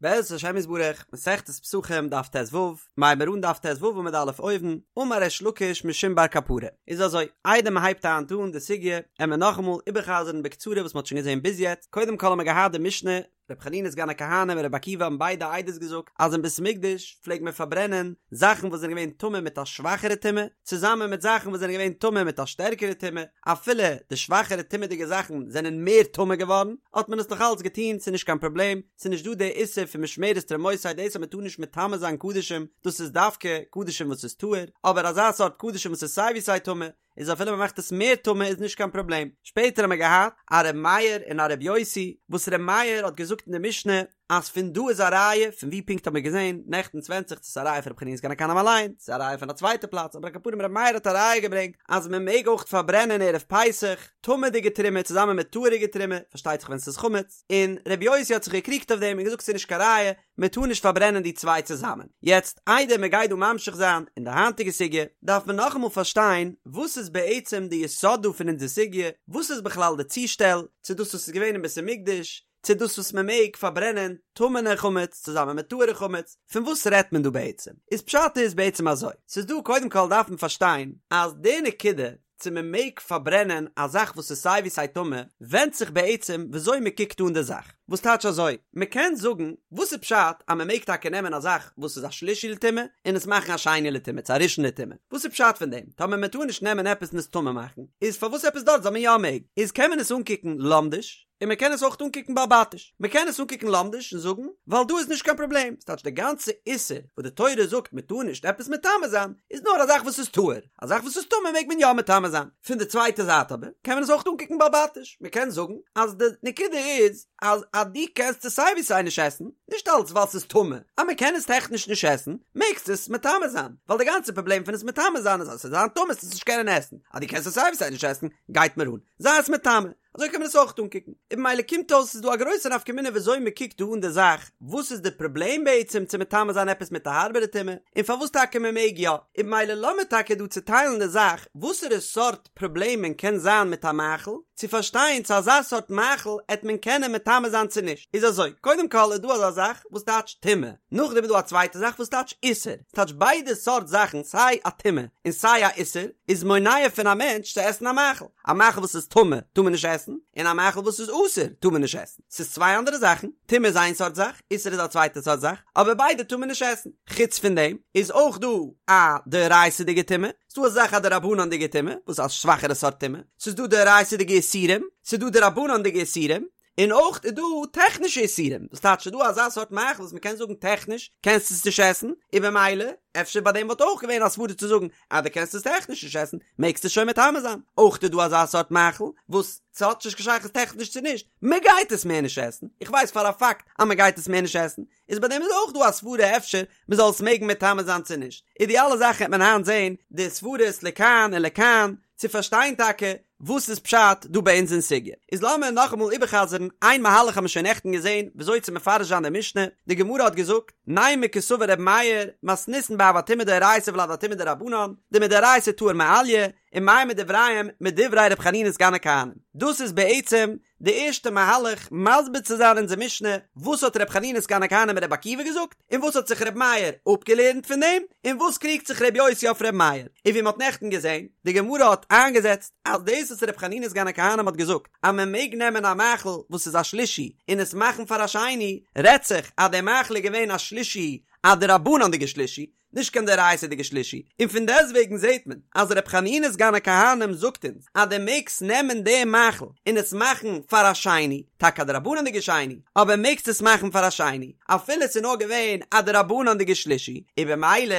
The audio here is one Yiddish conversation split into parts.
בעזרת השם יתברך, מסכת פסחים דף ט"ו, מ'הייבט מיר אן דף ט"ו עמוד א' אויבן, אמר ריש לקיש משום בר קפרא. איז אזוי, איידער מען הייבט היינט אן די סוגיא, עמער נאכאמאל איבערחזר'ן בקצרה וואס מען האט שוין געזען ביז יעצט, קודם כל האמער געהאט די משנה, ר' חנינא סגן הכהנים און ר' עקיבא האבן ביידע עדות געזאגט אז אין בית המקדש פלעגט מען פארברענען זאכן וואס זענען געווען טמא מיט א שוואכערע טומאה, צוזאמען מיט זאכן וואס זענען געווען טמא מיט א שטערקערע טומאה, אפילו די שוואכערע טומאה'דיגע זאכן זענען מער טמא געווארן, האט מען עס נאך אלץ געטון, ס'איז נישט קיין פראבלעם, ס'איז נישט דא די איסור פון משמרת תרומותי דאס אז מ'טאר נישט מטמא זיין קדשים, דאס איז דווקא קדשים וואס איז טהור, אבער אזא סארט קדשים וואס איז סיי ווי סיי טמא, איז אפילו מ'מאכט עס מער טמא איז נישט קיין פראבלעם. שפעטער האמיר געהאט א ר' מאיר און א ר' יוסי, וואס ר' מאיר האט געזאגט אין די משנה אז פון דא איז א ראיה, פון ווי פונקט האט מען געזען נעכטן ס'ווענדט זיך צו ס'איז א ראיה פון ר' חנינא סגן הכהנים אליין, צו ס'איז א ראיה פון א צווייטע פלאץ, אבער על כל פנים ר' מאיר האט א ראיה געברענגט אז מען מעג אויך פארברענען ערב פסח טמא'דיגע תרומה צוזאמען מיט טהור'יגע תרומה, פארשטייט זיך ווען ס'איז חמץ, און ר' יוסי האט זיך געקריגט אויף דעם און געזאגט ס'איז נישט קיין ראיה, מען טאר נישט פארברענען די צוויי צוזאמען. יעצט איידער מען גייט דא ממשיך זיין אין די היינטיגע סוגיא, דארף מען נאכאמאל פארשטיין וואס איז בעצם די יסוד דא פון אונזער סוגיא, וואס איז בכלל די צושטעל צו דאס וואס איז געווען אין בית המקדש, צו דאס וואס מען מעג פארברענען טמא'נע חמץ צוזאמען מיט טהור'ע חמץ, פון וואס רעדט מען דא בעצם? איז פשט איז בעצם אזוי, ס'איז דא קודם כל דארף מען פארשטיין אז די נקודה צו מען מעג פארברענען א זאך וואס איז סיי ווי סיי טמא ווענדט זיך בעצם וויאזוי מען קוקט אן די זאך, וואס טייטש אזוי? מען קען זאגן וואס איז פשט אז מען מעג טאקע נעמען א זאך וואס איז א שלישי לטומאה און עס מאכן א שני לטומאה צו א ראשון לטומאה, וואס איז פשט פון דעם? טאמער מען טאר נישט נעמען עפעס און עס טמא מאכן, איז פארוואס עפעס דארט זאל מען יא מעגן? איז קען מען עס אנקוקן לומדיש, און מען קען עס אויך אנקוקן בעל-בתיש. מען קען עס אנקוקן לומדיש און זאגן, ווייל דא איז נישט קיין פראבלעם, ס'טייטש די גאנצע איסור וואס די תורה זאגט מען טאר נישט עפעס מטמא זיין, איז נאר א זאך וואס איז טהור, א זאך וואס איז טמא מעג מען יא מטמא זיין. פון די צווייטע זייט אבער, קען מען עס אויך אנקוקן בעל-בתיש, מען קען זאגן אז די נקודה איז אז אז דו קענסט עס סיי ווי סיי נישט עסן, נישט אלץ ווייל ס'איז טמא, אז מען קען עס טעכניש נישט עסן, מעגסטו עס מטמא זיין, ווייל די גאנצע פראבלעם פון עס מטמא זיין איז אז ס'וועט זיין טמא וועסטו עס נישט קענען עסן, אז דו קענסט עס סיי ווי סיי נישט עסן, גייט מיר אן, זיי עס מטמא. אזוי קען מען עס אויך אנקוקן. און במילא קומט אויס ס'איז דא א גרויסע נפקא מינה וויאזוי מ'קוקט דא אן די זאך, וואס איז די פראבלעם בעצם צו מטמא זיין עפעס מיט א הארבערע טומאה, און פארוואס טאקע מ'מעג יא. און במילא לאמיר טאקע דא צוטיילן די זאך, וואסערע סארט פראבלעמען קען זיין מיט א מאכל, צו פארשטיין צו אזא סארט מאכל עט מען קענען מטמא זיין צו נישט. איז אזוי, קודם כל איז דא אזא זאך וואס טייטש טומאה, נאכדעם איז דא א צווייטע זאך וואס טייטש איסור, ס'טייטש ביידע סארט זאכן סיי א טומאה און סיי א איסור איז מונע פון א מענטש צו עסן א מאכל. א מאכל וואס איז טמא טאר מען נישט עסן, און א מאכל וואס איז אסור טאר מען נישט עסן. ס'איז צוויי אנדערע זאכן, טומאה איז איין סארט זאך, איסור איז א צווייטע סארט זאך, אבער ביידע טאר מען נישט עסן. חוץ פון דעם איז אויך דא א דאורייתא'דיגע טומאה, ס'איז דא א זאך א דרבנן'דיגע טומאה, וואס איז א שוואכערע סארט טומאה, ס'איז דא דאורייתא'דיגע איסורים, ס'איז דא דרבנן'דיגע איסורים, און אויך איז דא טעכנישע איסורים, דאס טייטש ס'איז דא אזא סארט מאכל וואס מ'קען זאגן טעכניש קענסטו עס נישט עסן, און במילא אפשר ביי דעם וואלט אויך געווען א סברא צו זאגן אז דו קענסט עס טעכניש נישט עסן מעגסטו עס שוין מטמא זיין, אויך איז דא אזא סארט מאכל וואס ס'האט נישט קיין שייכות טעכניש צו נישט, מ'גייט עס מער נישט עסן, איך ווייס פאר א פאקט אז מ'גייט עס מער נישט עסן, איז ביי דעם איז אויך דא א סברא אפשר מ'זאל עס מעגן מטמא זיין צו נישט, איז די אלע זאכן וועט מען היינט זעהן די סברות לכאן און לכאן צו פארשטיין טאקע וואס איז פשט דא ביי אונז אין סוגיא. איז לאמיר נאכאמאל איבערחזר'ן איין מהלך האבן מיר שוין נעכטן געזעהן וויאזוי צו מפרש זיין די משנה, די גמרא האט געזאגט, נימא קסבר ר' מאיר, מתניתין באב הטומאה דאורייתא ולד הטומאה דרבנן, דמדאורייתא טהור מעליא, ומאי מדבריהם מדברי ר' חנינא סגן הכהנים. דאס איז בעצם די ערשטע מהלך מסביר צו זיין אונזער משנה, וואס האט ר' חנינא סגן הכהנים און ר' עקיבא געזאגט, און וואס האט זיך ר' מאיר אפגעלערנט פון דעם, און וואס קריגט זיך ר' יוסי אויף ר' מאיר, און ווי מען האט נעכטן געזען, די גמרא האט איינגעזעצט אז דאס וואס ר' חנינא סגן הכהנים האט געזאגט אז מען מעג נעמען א מאכל וואס איז א שלישי און עס מאכן פאר א שני, רעדט זיך אז דער מאכל איז געווען א שלישי א דרבנן'דיגע שלישי, נישט קיין דאורייתא'דיגע שלישי, און פון דעסטוועגן זעט מען אז ר' חנינא סגן הכהנים זאגט אונז אז דו מעגסט נעמען די מאכל און עס מאכן פאר א שני, טאקע א דרבנן'דיגע שני, אבער מעגסט עס מאכן פאר א שני, אפילו עס איז נאר געווען א דרבנן'דיגע שלישי, און במילא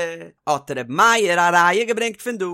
האט ר' מאיר א ראיה געברענגט פון דא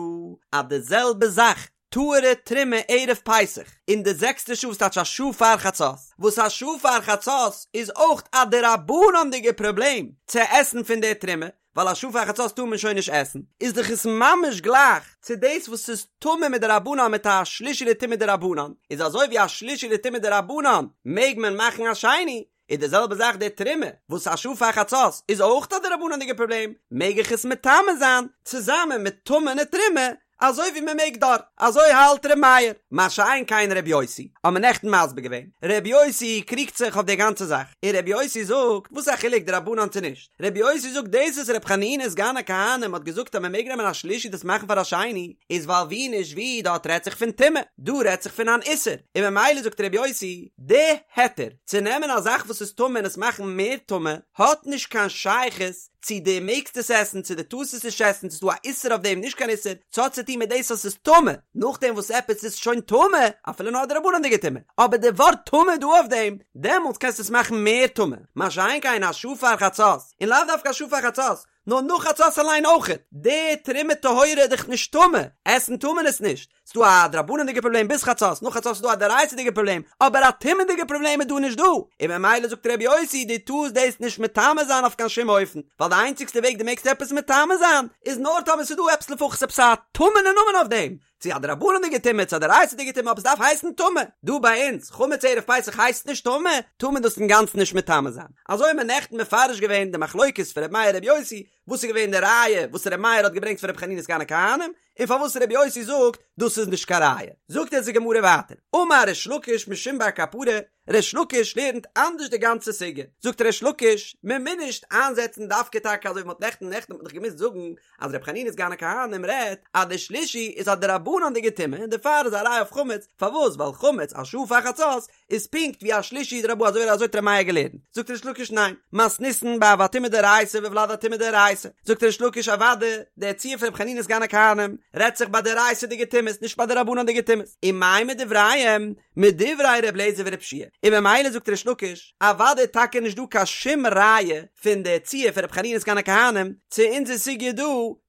אז די זעלבע זאך טהור'ע תרומה ערב פסח אין די זעקסטע שעה וואס טייטש א שעה פאר חצות, וואס א שעה פאר חצות איז אויך א דרבנן'דיגע פראבלעם צו עסן פון די תרומה, ווייל א שעה פאר חצות טאר מען שוין נישט עסן, איז דאך עס ממש גלייך צו דאס וואס איז טמא מדרבנן מיט א שלישי לטומאה דרבנן, איז אזוי ווי א שלישי לטומאה דרבנן מעג מען מאכן א שני, איז די זעלבע זאך די תרומה וואס א שעה פאר חצות איז אויך א דרבנן'דיגע פראבלעם, מעג איך עס מטמא זיין צוזאמען מיט טמא'נע תרומה? אזוי ווי מען מעג דארט, אזוי האלט ר' מאיר, מה שאין כן ר' יוסי, האט מען נעכטן מסביר געווען, ר' יוסי קריגט זיך אויף די גאנצע זאך, און ר' יוסי זאגט, וואס איז א חילוק דרבנן צו נישט, ר' יוסי זאגט דאס וואס ר' חנינא סגן הכהנים האט געזאגט אז מען מעג נעמען א שלישי דאס מאכן פאר א שני, איז ווייל ווי נישט ווי דארט רעדט זיך פון טומאה, דא רעדט זיך פון אן איסור, און ממילא זאגט ר' יוסי, די היתר צו נעמען א זאך וואס איז טמא און עס מאכן מער טמא, האט נישט קיין שייכות צו דו מעגסט עס עסן צו דו טארסט עס נישט עסן, צו ס'איז דא א איסור אויף דעם נישט קיין איסור, ס'האט צו טון מיט דאס אז ס'איז טמא, נאכדעם וואס עפעס איז שוין טמא, אפילו נאר א דרבנן'דיגע טומאה, אבער די ווארט טמא דא אויף דעם, דעמאלטס קענסטו עס מאכן מער טמא, מה שאין כן א שעה פאר חצות, און לאו דווקא א שעה פאר חצות, נאר נאך חצות אליין אויכעט, די תרומה טהורה איז דאך נישט טמא, עסן טאר מען עס נישט, ס'דא א דרבנן'דיגע פראבלעם ביז חצות, נאך חצות איז דא א דאורייתא'דיגע פראבלעם, אבער א טומאה'דיגע פראבלעם איז דא נישט דא, און ממילא זאגט ר' יוסי דו טארסט דאס נישט מטמא זיין אויף קיין שום אופן, ווייל די איינציגסטע וועג דו מעגסט עפעס מטמא זיין איז נאר טאמער ס'איז דא עפעס לפחות עפעס א טמא'נע נאמען אויף דעם, צו א דרבנן'דיגע טומאה צו א דאורייתא'דיגע טומאה אבער ס'דארף הייסן טמא, דא ביי אונז חמץ ערב פסח הייסט נישט טמא, טאר מען דאס אינגאנצן נישט מטמא זיין. אזוי האט מען נעכטן מפרש געווען די מחלוקת פון ר' מאיר ר' יוסי, וואס איז געווען די ראיה וואס ר' מאיר האט געברענגט פון ר' חנינא סגן הכהנים, און פארוואס ר' יוסי זאגט דאס איז נישט קיין ראיה. זאגט אונז די גמרא ווייטער, אמר ריש לקיש משום בר קפרא, ריש לקיש לערנט אנדערש די גאנצע סוגיא, זאגט ריש לקיש, מען מוז נישט איינזעצן דווקא טאקע אזוי ווי מען האט נעכטן, נעכטן האט מען דאך געמוזט זאגן אז ר' חנינא סגן הכהנים רעדט אז די שלישי איז א דרבנן'דיגע טומאה און דערפאר איז א ראיה אויף חמץ, פארוואס? ווייל חמץ א שעה פאר חצות איז פונקט ווי א שלישי דרבנן אזוי אזוי האט ר' מאיר געלערנט, זאגט ריש לקיש ניין, מתניתין באב הטומאה דאורייתא וולד הטומאה דאורייתא, זאגט ריש לקיש אוואדע דער ציור פון ר' חנינא סגן הכהנים רעדט זיך ביי דאורייתא'דיגע טומאות נישט ביי דרבנן'דיגע טומאות, ומאי מדבריהם מדברי ר' אליעזר ור' יהושע און ממילא זאגט ריש לקיש אוואדע איז טאקע נישט דא קיין שום ראיה פון די ציור פון ר' חנינא סגן הכהנים צו אונזער סוגיא דא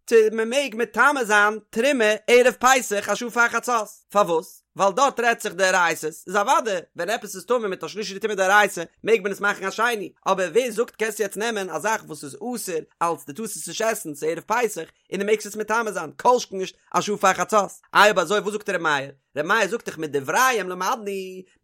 צו מען מעג מטמא זיין תרומה ערב פסח א שעה פאר חצות, פארוואס? ווייל דארט רעדט זיך דאורייתא'ס, איז אוודאי ווען עפעס איז טמא מיט א שלישי טומאה דאורייתא מעג מען עס מאכן א שני, אבער ווער זאגט קענסט יעצט נעמען א זאך וואס איז אסור אלץ דו טארסט עס נישט עסן ס'איז ערב פסח און דו מעגסט עס מטמא זיין, כל שכן נישט א שעה פאר חצות, איי אויב אזוי וואס זאגט ר' מאיר? ר' מאיר זאגט דאך מדבריהם למדנו,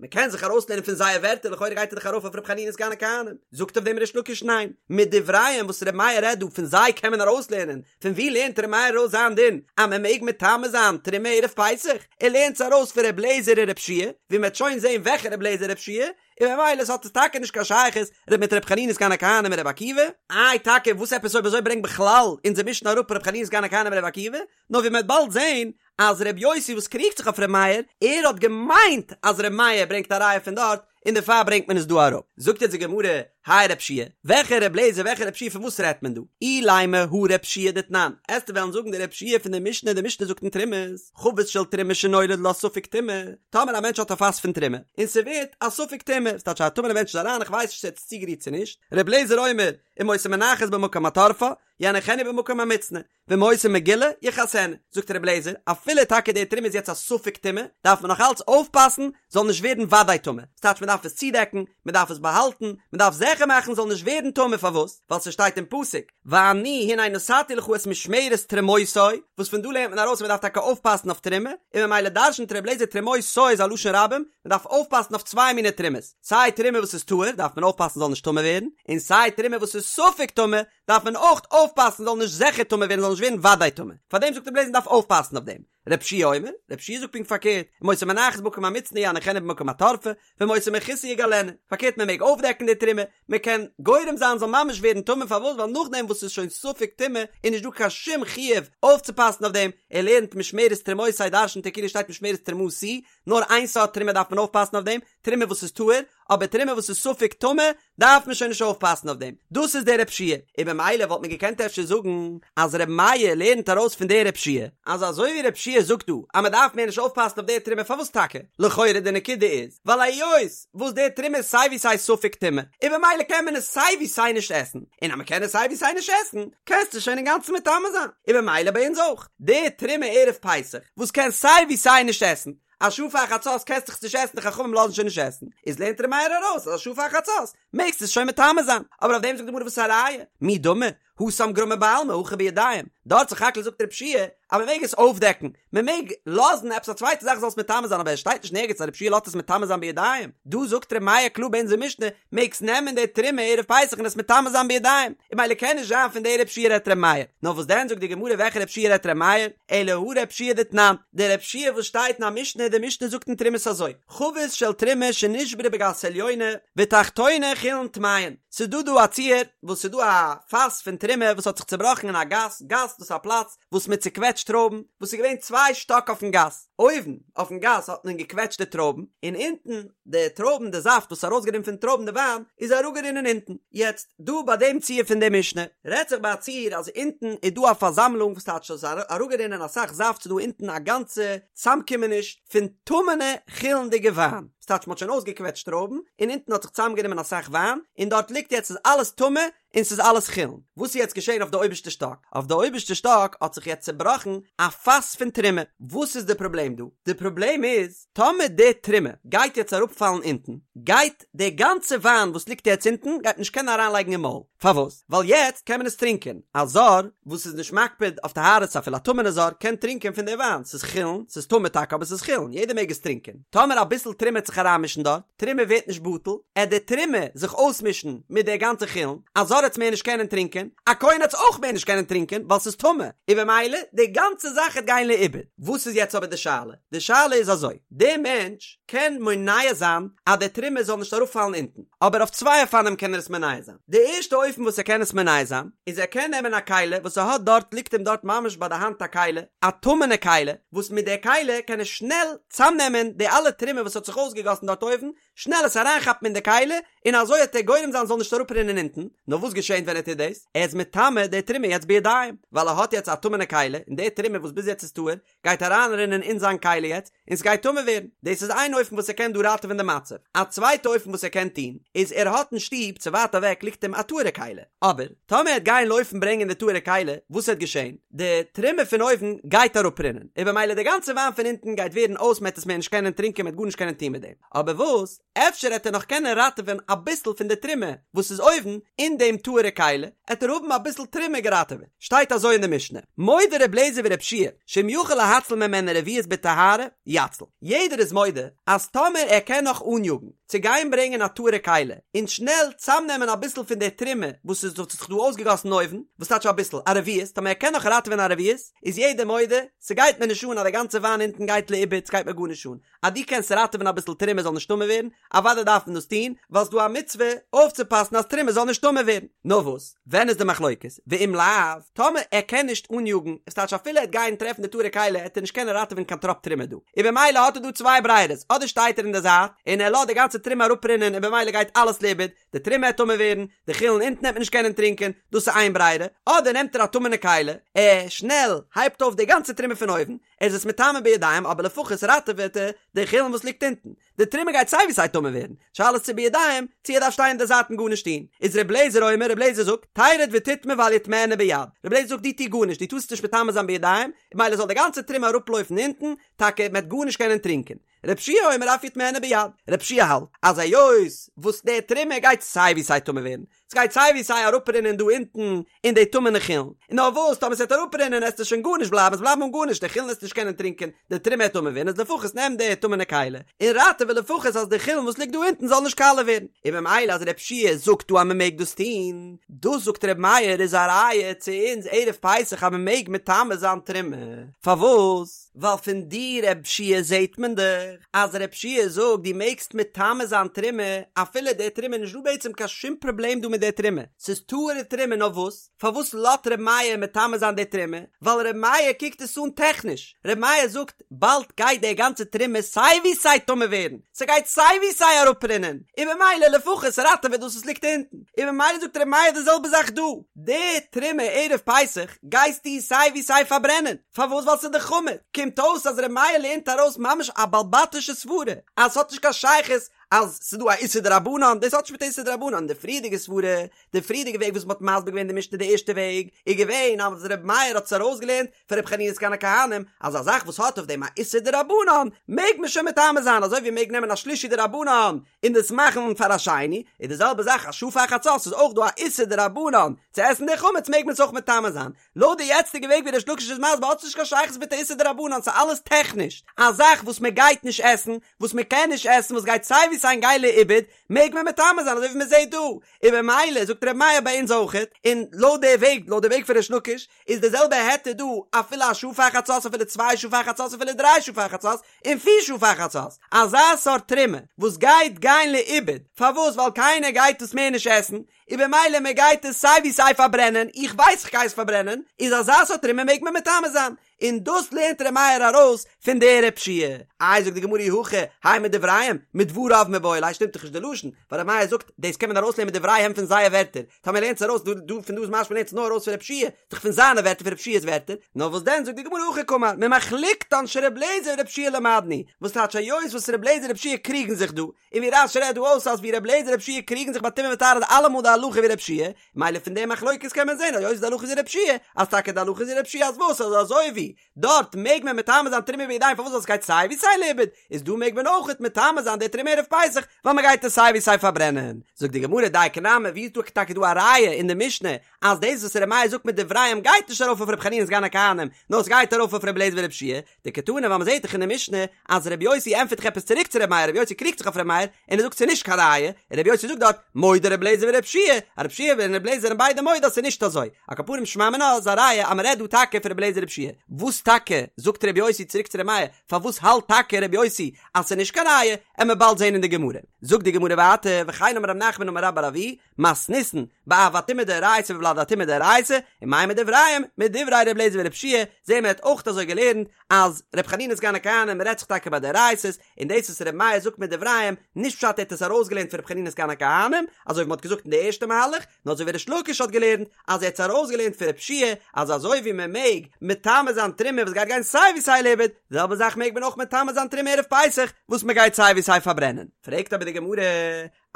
מען קען זיך ארויסלערנען פון זייער ווערטער לכאורה גייט ער דאך ארויף אויף ר' חנינא סגן הכהנים, זאגט אויף דעם ריש לקיש ניין, מדבריהם וואס ר' מאיר רעדט דא פון זיי קען מען ארויסלערנען, פון ווי לערנט ר' מאיר ארויס זיין דין אז מען מעג מטמא זיין תרומה ערב פסח? ער לערנט עס ארויס פון ר' לעזער און ר' יהושע, ווי מען וועט שוין זען וועלכע ר' לעזער ר' יהושע, און ממילא עס האט עס טאקע נישט קיין שייכות ר' מיט ר' חנינא סגן הכהנים און ר' עקיבא, איי טאקע וואס עפעס אויב אזוי ברענגט בכלל אונזער משנה אראפ ר' חנינא סגן הכהנים און ר' עקיבא, נאר ווי מען וועט באלד זען אז ר' יוסי וואס קריגט זיך אויף ר' מאיר, ער האט געמיינט אז ר' מאיר ברענגט א ראיה פון דארט, און דערפאר ברענגט מען עס דא אראפ. זאגט יעצט די גמרא, הי ר' יהושע, וועלכע ר' לעזער וועלכע ר' יהושע פון וואס רעדט מען דא? אילימא הא ר' יהושע דתנן, עסטו וועלן זאגן די ר' יהושע פון די משנה, די משנה זאגט אין תרומות, חבית של תרומה שנולד לה ספק טומאה, טאמער א מענטש האט א פאס פון תרומה, און ס'ווערט א ספק טומאה, ס'טייטש א טמא'נע מענטש איז אריין איך ווייס נישט צו ער האט עס צוגערירט צו נישט, ר' לעזער אומר, אם היתה מונחת במקום התורפה, יניחנה במקום המוצנע, ואם היתה מגולה, יכסנה. זאגט רבי אליעזר, אפילו טאקע די תרומה איז יעצט א ספק טומאה, דארף מען נאך אלץ אויפפאסן זאל נישט ווערן וודאי טמא. ס'טייטש מען דארף עס צודעקן, מען דארף עס באהאלטן, מען דארף זיכער מאכן זאל נישט ווערן טמא, פארוואס? ווייל ס'שטייט אין פסוק, ואני הנה נתתי לך את משמרת תרומותי, וואס פון דא לערנט מען ארויס אז מען דארף טאקע אויפפאסן אויף תרומה, און ממילא דרש'נט רבי אליעזר תרומותי איז א לשון רבים, מען דארף אויפפאסן אויף צוויי מיני תרומות, סיי תרומה וואס איז טהור דארף מען אויפפאסן זאל נישט טמא ווערן, און סיי תרומה וואס איז ספק טמא דארף מען אויך אויפפאסן זאל נישט זיכער טמא ווערן זאל נישט ווערן וודאי טמא, פארדעם זאגט רבי אליעזר מ'דארף אויפפאסן אויף דעם. רבי יהושע אומר, רבי יהושע זאגט פונקט פארקערט, אם היתה מונחת במקום המוצנע יניחנה במקום התורפה, ואם היתה מכוסה יגלנה, פארקערט מען מעג אויפדעקן די תרומה, מען קען גורם זיין זאל ממש ווערן טמא פארוואס ווייל נאכדעם וואס ס'איז שוין ספק טומאה איז נישט דא קיין שום חיוב אויפצופאסן אויף דעם, ער לערנט משמרת תרומותי דרש'נט ער כאילו שטייט משמרת תרומתי, נאר איין סארט תרומה דארף מען אויפפאסן אויף דעם, תרומה וואס איז טהור, אבער תרומה וואס איז ספק טמא דארף מען שוין נישט אויפפאסן אויף דעם, דאס איז דער ר' יהושע, און במילא וואלט מען געקענט אפשר זאגן אז ר' מאיר לערנט ארויס פון דער ר' יהושע, אז אזוי ווי ר' יהושע זאגט דא אז מען דארף מער נישט אויפפאסן אויף דער תרומה פארוואס טאקע? לכאורה די נקודה איז ווייל היות וואס דער תרומה איז סיי ווי סיי ספק טומאה, און במילא קען מען עס סיי ווי סיי נישט עסן, און אז מען קען עס סיי ווי סיי נישט עסן, קענסטו שוין אינגאנצן מטמא זיין, און במילא ביי אונז אויך, די תרומה ערב פסח וואס קען סיי ווי סיי נישט עסן, א שעה פאר חצות קענסט דאך עס נישט עסן די חכמים לאזן שוין נישט עסן, איז לערנט ר' מאיר ארויס אז א שעה פאר חצות מעגסטו עס שוין מטמא זיין, אבער אויף דעם זאגט די גמרא וואס איז א ראיה? מי דמי? התם גרמא בעלמא הכא בידיים, דארט סך הכל זאגט רב שיע אז מען מעג עס אויפדעקן, מען מעג לאזן עפעס א צווייטע זאך זאל עס מטמא זיין אבער עס שטייט נישט נערגעץ אז רב שיע לאזט עס מטמא זיין בידיים, דא זאגט ר' מאיר קלאר ביי אונזער משנה מעגסט נעמען די תרומה ערב פסח און עס מטמא זיין בידיים, און ממילא קען נישט זיין פון די רב שיע רעדט ר' מאיר, נאר וואס דען זאגט די גמרא וועלכע רב שיע רעדט ר' מאיר, אלא הא רב שיע דתנן, די רב שיע וואס שטייט אין א משנה, די משנה זאגט אין תרומות אזוי, חבית של תרומה שנשברה בגת עליונה ותחתונה חולין טמאין, ס'איז דא דא א ציור וואס ס'איז דא א פאס פון תרומה וואס האט זיך צובראכן אין א גת, גת דאס איז א פלאץ וואס מען צוקוועטשט טרויבן, וואס איז געווען צוויי שטאק אויפן גת, אויבן אויפן גת האט מען געקוועטשט די טרויבן, און אונטן די טרויבן די זאפט וואס איז ארויסגערינען פון טרויבן די וויין איז אראפגערינען אונטן, יעצט דא ביי דעם ציור פון די משנה רעדט זיך ביי א ציור אז אונטן איז דא א פארזאמלונג וואס טייטש אז ס'איז אראפגערינען אסאך זאפט ס'איז דא אונטן א גאנצע צאמקומעניש פון טמא'נע חולין'דיגע וויין, וואס טייטש מ'האט שוין אויסגעקוועטשט טרויבן און אונטן האט זיך צאמגענומען אסאך וויין און דארט ליגט יעצט איז אלעס טמא און ס'איז אלעס חולין. וואס איז יעצט געשען אויף די אויבערשטע שטאק? אויף די אויבערשטע שטאק האט זיך יעצט צובראכן א פאס פון תרומה. וואס איז די פראבלעם דא? די פראבלעם איז, טאמער די תרומה גייט יעצט אראפפאלן אונטן, גייט די גאנצע וויין וואס ליגט יעצט אונטן גייט מען נישט קענען אריינלייגן אין מויל. פארוואס? ווייל יעצט קען מען עס טרינקען. א זר וואס איז נישט מקפיד אויף טהרות אפילו א טמא'נע זר קען טרינקען פון די וויין. ס'איז חולין, ס'איז טמא טאקע אבער ס'איז חולין, יעדער מעג עס טרינקען. טאמער אביסל תרומה עט זיך אריינמישן דארט, תרומה ווערט נישט בטל, עט די תרומה זיך אויסמישן מיט די גאנצע חולין, א זר עט עס מער נישט קענען טרינקען, א כהן עט עס אויך מער נישט קענען טרינקען ווייל ס'איז טמא, און במילא די גאנצע זאך עט גיין לאיבוד. וואס איז יעצט אבער די שאלה? די שאלה איז אזוי, די מענטש קען מונע זיין אז די תרומה זאל נישט אראפפאלן אונטן, אבער אויף צוויי אופנים קען ער עס מונע זיין. די ערשטע אופן וואס ער קען עס מונע זיין, איז ער קען נעמען א כלי וואס ער האט דארט ליגט אים דארט ממש ביי די האנט א כלי, א טמא'נע כלי, וואס מיט די כלי קען ער שנעל צאמנעמען די אלע תרומה וואס האט זיך אויסגעגאסן דארט אויבן, שנעל עס אריינכאפן אין די כלי, און אזוי העט ער גורם זיין ס'זאל נישט אראפרינען אונטן, נאר וואס געשענט ווען ער טוט דאס? ער איז מטמא די תרומה יעצט בידיים, ווייל ער האט יעצט א טמא'נע כלי, און די תרומה וואס ביז יעצט איז טהור, גייט אריינרינען אין זיין כלי יעצט, און ס'גייט טמא ווערן. דאס איז איין אופן וואס ער קען דא ראטעווען די מצב. א צווייטע אופן וואס ער קען טון, איז ער האט אין שטוב צו ווייט אוועק ליגט אים א טהור'ע כלי. אבער, טאמער ער העט גיין לויפן ברענגען די טהור'ע כלי, וואס העט געשען? די תרומה פון אויבן גייט אראפרינען, און במילא די גאנצע וויין פון אונטן גייט ווערן אויס, מ'העט עס מער נישט קענען טרינקען, מ'העט גארנישט קענען טון מיט דעם. אבער וואס? אפשר העט ער נאך קענען ראטעווען אביסל פון די תרומה וואס איז אויבן אין דעם טהור'ע כלי, העט ער האבן אביסל תרומה געראטעוועט. שטייט אזוי אין די משנה, מודה ר' לעזער ור' שיע, שאם יכול להציל ממנה רביעית בטהרה, יציל. יעדער איז מודה אז טאמער ער קען נאך אניאגן צו גיין ברענגען א טהור'ע כלי און שנעל צאמנעמען אביסל פון די תרומה וואס איז האט זיך דא אויסגעגאסן אויבן, וואס טייטש אביסל? א רביעית, טאמער ער קען נאך ראטעווען א רביעית, איז יעדער מודה, ס'גייט מיר נישט אן אז די גאנצע וויין אונטן גייט לאיבוד, ס'גייט מיר גארנישט אן. אז דו קענסט ראטעווען אביסל תרומה זאל נישט טמא ווערן, אוודאי דארף מען דאס טון, ווייל ס'דא א מצוה אויפצופאסן אז תרומה זאל נישט טמא ווערן. נאר וואס, ווען איז די מחלוקת? ואם לאו, טאמער ער קען נישט אניאגן, עס טייטש אפילו ער וועט גיין טרעפן די טהור'ע כלי העט ער נישט קענען ראטעווען קיין טראפ תרומה דא, און במילא האט ער דא צוויי ברירות, אדער שטייט ער אין די זייט און ער לאזט די גאנצע תרומה אראפרינען און במילא גייט אלעס לאיבוד, די תרומה העט טמא ווערן, די חולין אונטן העט מען נישט קענען טרינקען, דאס איז איין ברירה, אדער נעמט ער א טמא'נע כלי, ער שנעל הייבט אויף די גאנצע תרומה פון אויבן, ער איז עס מטמא בידיים אבער לפחות ראטעוועט ער די חולין וואס ליגט אונטן, די תרומה גייט סיי ווי סיי טמא ווערן, שאלה איז צו בידיים, צו ער דארף שטיין אין די זייט און גארנישט טון, איז ר' לעזער אומר, ר' לעזער זאגט, תרד ותטמא ואל יטמאנה ביד, ר' לעזער זאגט דו טו גארנישט, דו טארסט נישט מטמא זיין בידיים, ממילא זאל די גאנצע תרומה אראפלויפן אונטן, טאקע מען וועט גארנישט קענען טרינקען. רב שיע אומר אף יטמאנה ביד, רב שיע האלט אז היות וואס די תרומה גייט סיי ווי סיי טמא ווערן, ס'גייט סיי ווי סיי אראפרינען דא אונטן אין די טמא'נע חולין, און נאר וואס טאמער ס'וועט אראפרינען עסטו שוין גארנישט בלייבן, עס בלייבן אן גארנישט, די חולין עסטו נישט קענען טרינקען, די תרומה וועט טמא ווערן, איז לפחות נעם די טמא'נע כלי און ראטעווע לפחות אז די חולין וואס ליגט דא אונטן זאל נישט קאלע ווערן. און ממילא אז רב שיע זאגט דא אז מ'מעג דאס טון, דאס זאגט ר' מאיר איז א ראיה צו אונז ערב פסח אז מ'מעג מטמא זיין תרומה, פארוואס? ווייל פון די רב שיע זעהט מען דאך אז רב שיע זאגט דו מעגסט מטמא זיין תרומה אפילו די תרומה נישט דא בעצם קיין שום פראבלעם דא מיט די תרומה ס'איז טהור'ע תרומה נאר וואס פארוואס לאט ר' מאיר מטמא זיין די תרומה ווייל ר' מאיר קוקט עס אן טעכניש ר' מאיר זאגט באלד גייט די גאנצע תרומה סיי ווי סיי טמא ווערן ס'גייט סיי ווי סיי אראפרינען און ממילא לפחות ראטעווע דאס וואס ליגט אונטן און ממילא זאגט ר' מאיר די זעלבע זאך דא די תרומה ערב פסח גייסטו סיי ווי סיי פארברענען פארוואס ווייל ס'איז דאך חמץ? קומט אויס אז ר' מאיר לערנט ארויס ממש א בעל בתישע סברה אז ס'האט נישט קיין שייכות. אז ס'איז דא א איסור דרבנן, דאס האט נישט מיט איסור דרבנן, די פריערדיגע סברה, די פריערדיגע וועג וואס מ'האט מסביר געווען די משנה די ערשטע וועג, איז געווען אז ר' מאיר האט עס ארויסגעלערנט פון ר' חנינא סגן הכהנים, אז א זאך וואס האט אויף דעם א איסור דרבנן, מעג מען שוין מטמא זיין, אזוי ווי מ'מעג נעמען א שלישי דרבנן און דאס מאכן פאר א שני, איז די זעלבע זאך א שעה פאר חצות איז אויך דא א איסור דרבנן צו עסן די חמץ מעג מען עס אויך מטמא זיין, לויט די יעצטיגע וועג ווי ריש לקיש איז מסביר האט עס נישט קיין שייכות מיט א איסור דרבנן ס'איז אלעס טעכניש, א זאך וואס מען גייט נישט עסן, וואס מען קען נישט עסן, וואס גייט סיי ווי סיי גיין לאיבוד, מעג מען מטמא זיין אזוי ווי מען זעט דא, און במילא זאגט ר' מאיר ביי אונז אויכעט, און לויט די וועג, לויט די וועג פון ריש לקיש, איז די זעלבע היתר דא אפילו א שעה פאר חצות אפילו צוויי שעה פאר חצות אפילו דריי שעה פאר חצות, און פיר שעה פאר חצות, אזא סארט תרומה וואס גייט גיין לאיבוד, פארוואס ווייל קיינער גייט עס מער נישט עסן, און במילא מען גייט עס סיי ווי סיי פארברענען, איך ווייס איך גיי עס פארברענען, איז אזא סארט תרומה מעג מען מטמא זיין, און דאס לערנט ר' מאיר ארויס פון די רב שיע. איי זאגט די גמרא אי הכי, האי מדבריהם, מדבריו מיבעי ליה שטימט דאך נישט די לשון, ווייל ר' מאיר זאגט דאס קען מען ארויסלערנען מדבריהם פון זייער ווערטער, טאמער לערנט עס ארויס דא דא פון דא איז משמע לערנט עס נאר ארויס פון רב שיע, דאך פון זיינע ווערטער פון רב שיע'ס ווערטער, נאר וואס דען זאגט די גמרא הכי קאמר, ממחלוקתן של ר' לעזער ורב שיע למדנו, וואס טייטש היות וואס ר' לעזער און רב שיע קריגן זיך דא, און ווי רש"י רעדט דא אויס אז ווי ר' לעזער רב שיע קריגן זיך ביי טומאה וטהרה איז אלעמאל די הלכה ווי רב שיע, מילא פון די מחלוקת קען מען זען היות די הלכה איז ווי רב שיע, אז טאקע די הלכה איז ווי רב שיע אז וואס אז אזוי ווי דארט מעג מען מטמא זיין תרומה בידיים פארוואס ווייל עס גייט סיי ווי סיי לאיבוד, איז דא מעג מען אויכעט מטמא זיין די תרומה ערב פסח ווייל מען גייט עס סיי ווי סיי פארברענען. זאגט די גמרא דייקא נמי ווי איז דא טאקע דא א ראיה אין די משנה אז דאס וואס ר' מאיר זאגט מדבריהם גייט נישט ארויף אויף ר' חנינא סגן הכהנים נאר עס גייט ארויף אויף ר' לעזער ורב שיע, דקתני ווייל מ'זעט דאך אין די משנה אז ר' יוסי ענטפערט דאך עפעס צוריק צו ר' מאיר, ר' יוסי קריגט זיך אויף ר' מאיר און ער זאגט ס'איז נישט קיין ראיה, און ר' יוסי זאגט דארט מודה ר' לעזער ור' שיע, אז ר' שיע און ר' לעזער זענען ביידע מודה אז ס'איז נישט אזוי, על כל פנים שמע מינה איז א ראיה אז מ'רעדט דא טאקע פון ר' לעזער ר' שיע, וואס טאקע זאגט ר' יוסי צוריק צו ר' מאיר, פארוואס האלט טאקע ר' יוסי אז ס'איז נישט קיין ראיה, עמיר באלד זען אין די גמרא. זאגט די גמרא ווייטער, וכן אמר רב נחמן אמר רבה בר אבוה, מתניתין, באב הטומאה דאורייתא ובולד הטומאה דאורייתא, ומאי מדבריהם, מדברי ר' אליעזר ור' יהושע, זעהן מיר האט אויך אזוי געלערנט אז ר' חנינא סגן הכהנים רעדט זיך טאקע ביי דאורייתא'ס, און דאס וואס ר' מאיר זאגט מדבריהם, נישט פשט ער האט עס ארויסגעלערנט פון ר' חנינא סגן הכהנים, אזוי ווי מ'האט געזאגט אין די ערשטע מהלך, נאר אזוי ווי ריש לקיש האט געלערנט אז ער האט עס ארויסגעלערנט פון ר' יהושע אז אזוי ווי מען מעג מטמא זיין תרומה וואס גייט גיין סיי ווי סיי לאיבוד, די זעלבע זאך מעג מען אויך מטמא זיין תרומה ערב פסח וואס מען גייט סיי ווי סיי פארברענען. פרעגט אבער די גמרא,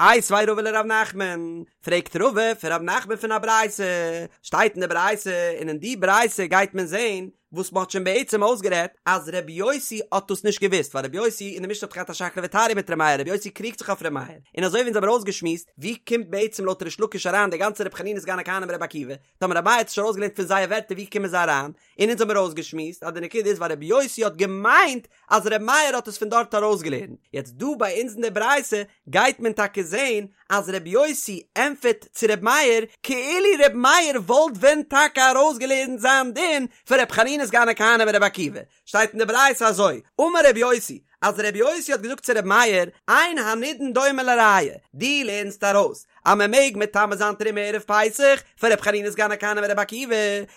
איתיביה רבא לרב נחמן, פרעגט רבא פון רב נחמן פון א ברייתא, שטייט אין די ברייתא און אין די ברייתא גייט מען זען וואס מ'האט שוין בעצם אויסגערעדט אז ר' יוסי האט דאס נישט געוואוסט ווייל ר' יוסי אין די משנה האט געהאט א שקלא וטריא מיט ר' מאיר ר' יוסי קריגט זיך אויף ר' מאיר און אזוי ווי אונז האבן אויסגעשמועסט ווי קומט בעצם לויט ריש לקיש אריין די גאנצע ר' חנינא סגן הכהנים ר' עקיבא טאמער ר' מאיר האט עס נישט ארויסגעלערנט פון זייער ווערטער ווי קומען זיי אריין און אונז האבן אויסגעשמועסט אז די נקודה איז ווייל ר' יוסי האט געמיינט אז ר' מאיר האט עס פון דארט ארויסגעלערנט יעצט דא ביי אונז אין די ברייתא גייט מען טאקע זעהן אז ר' יוסי ענטפערט צו ר' מאיר כאילו ר' מאיר וואלט ווען טאקע ארויסגעלערנט זיין דין פון ר' חנינא סגן הכהנים און ר' עקיבא, שטייט אין די ברייתא אזוי, אמר ר' יוסי, אז ר' יוסי האט געזאגט צו ר' מאיר, אין הנידון דומה לראיה, דו לערנסט ארויס אז מען מעג מטמא זיין תרומה ערב פסח פון ר' חנינא סגן הכהנים און ר' עקיבא,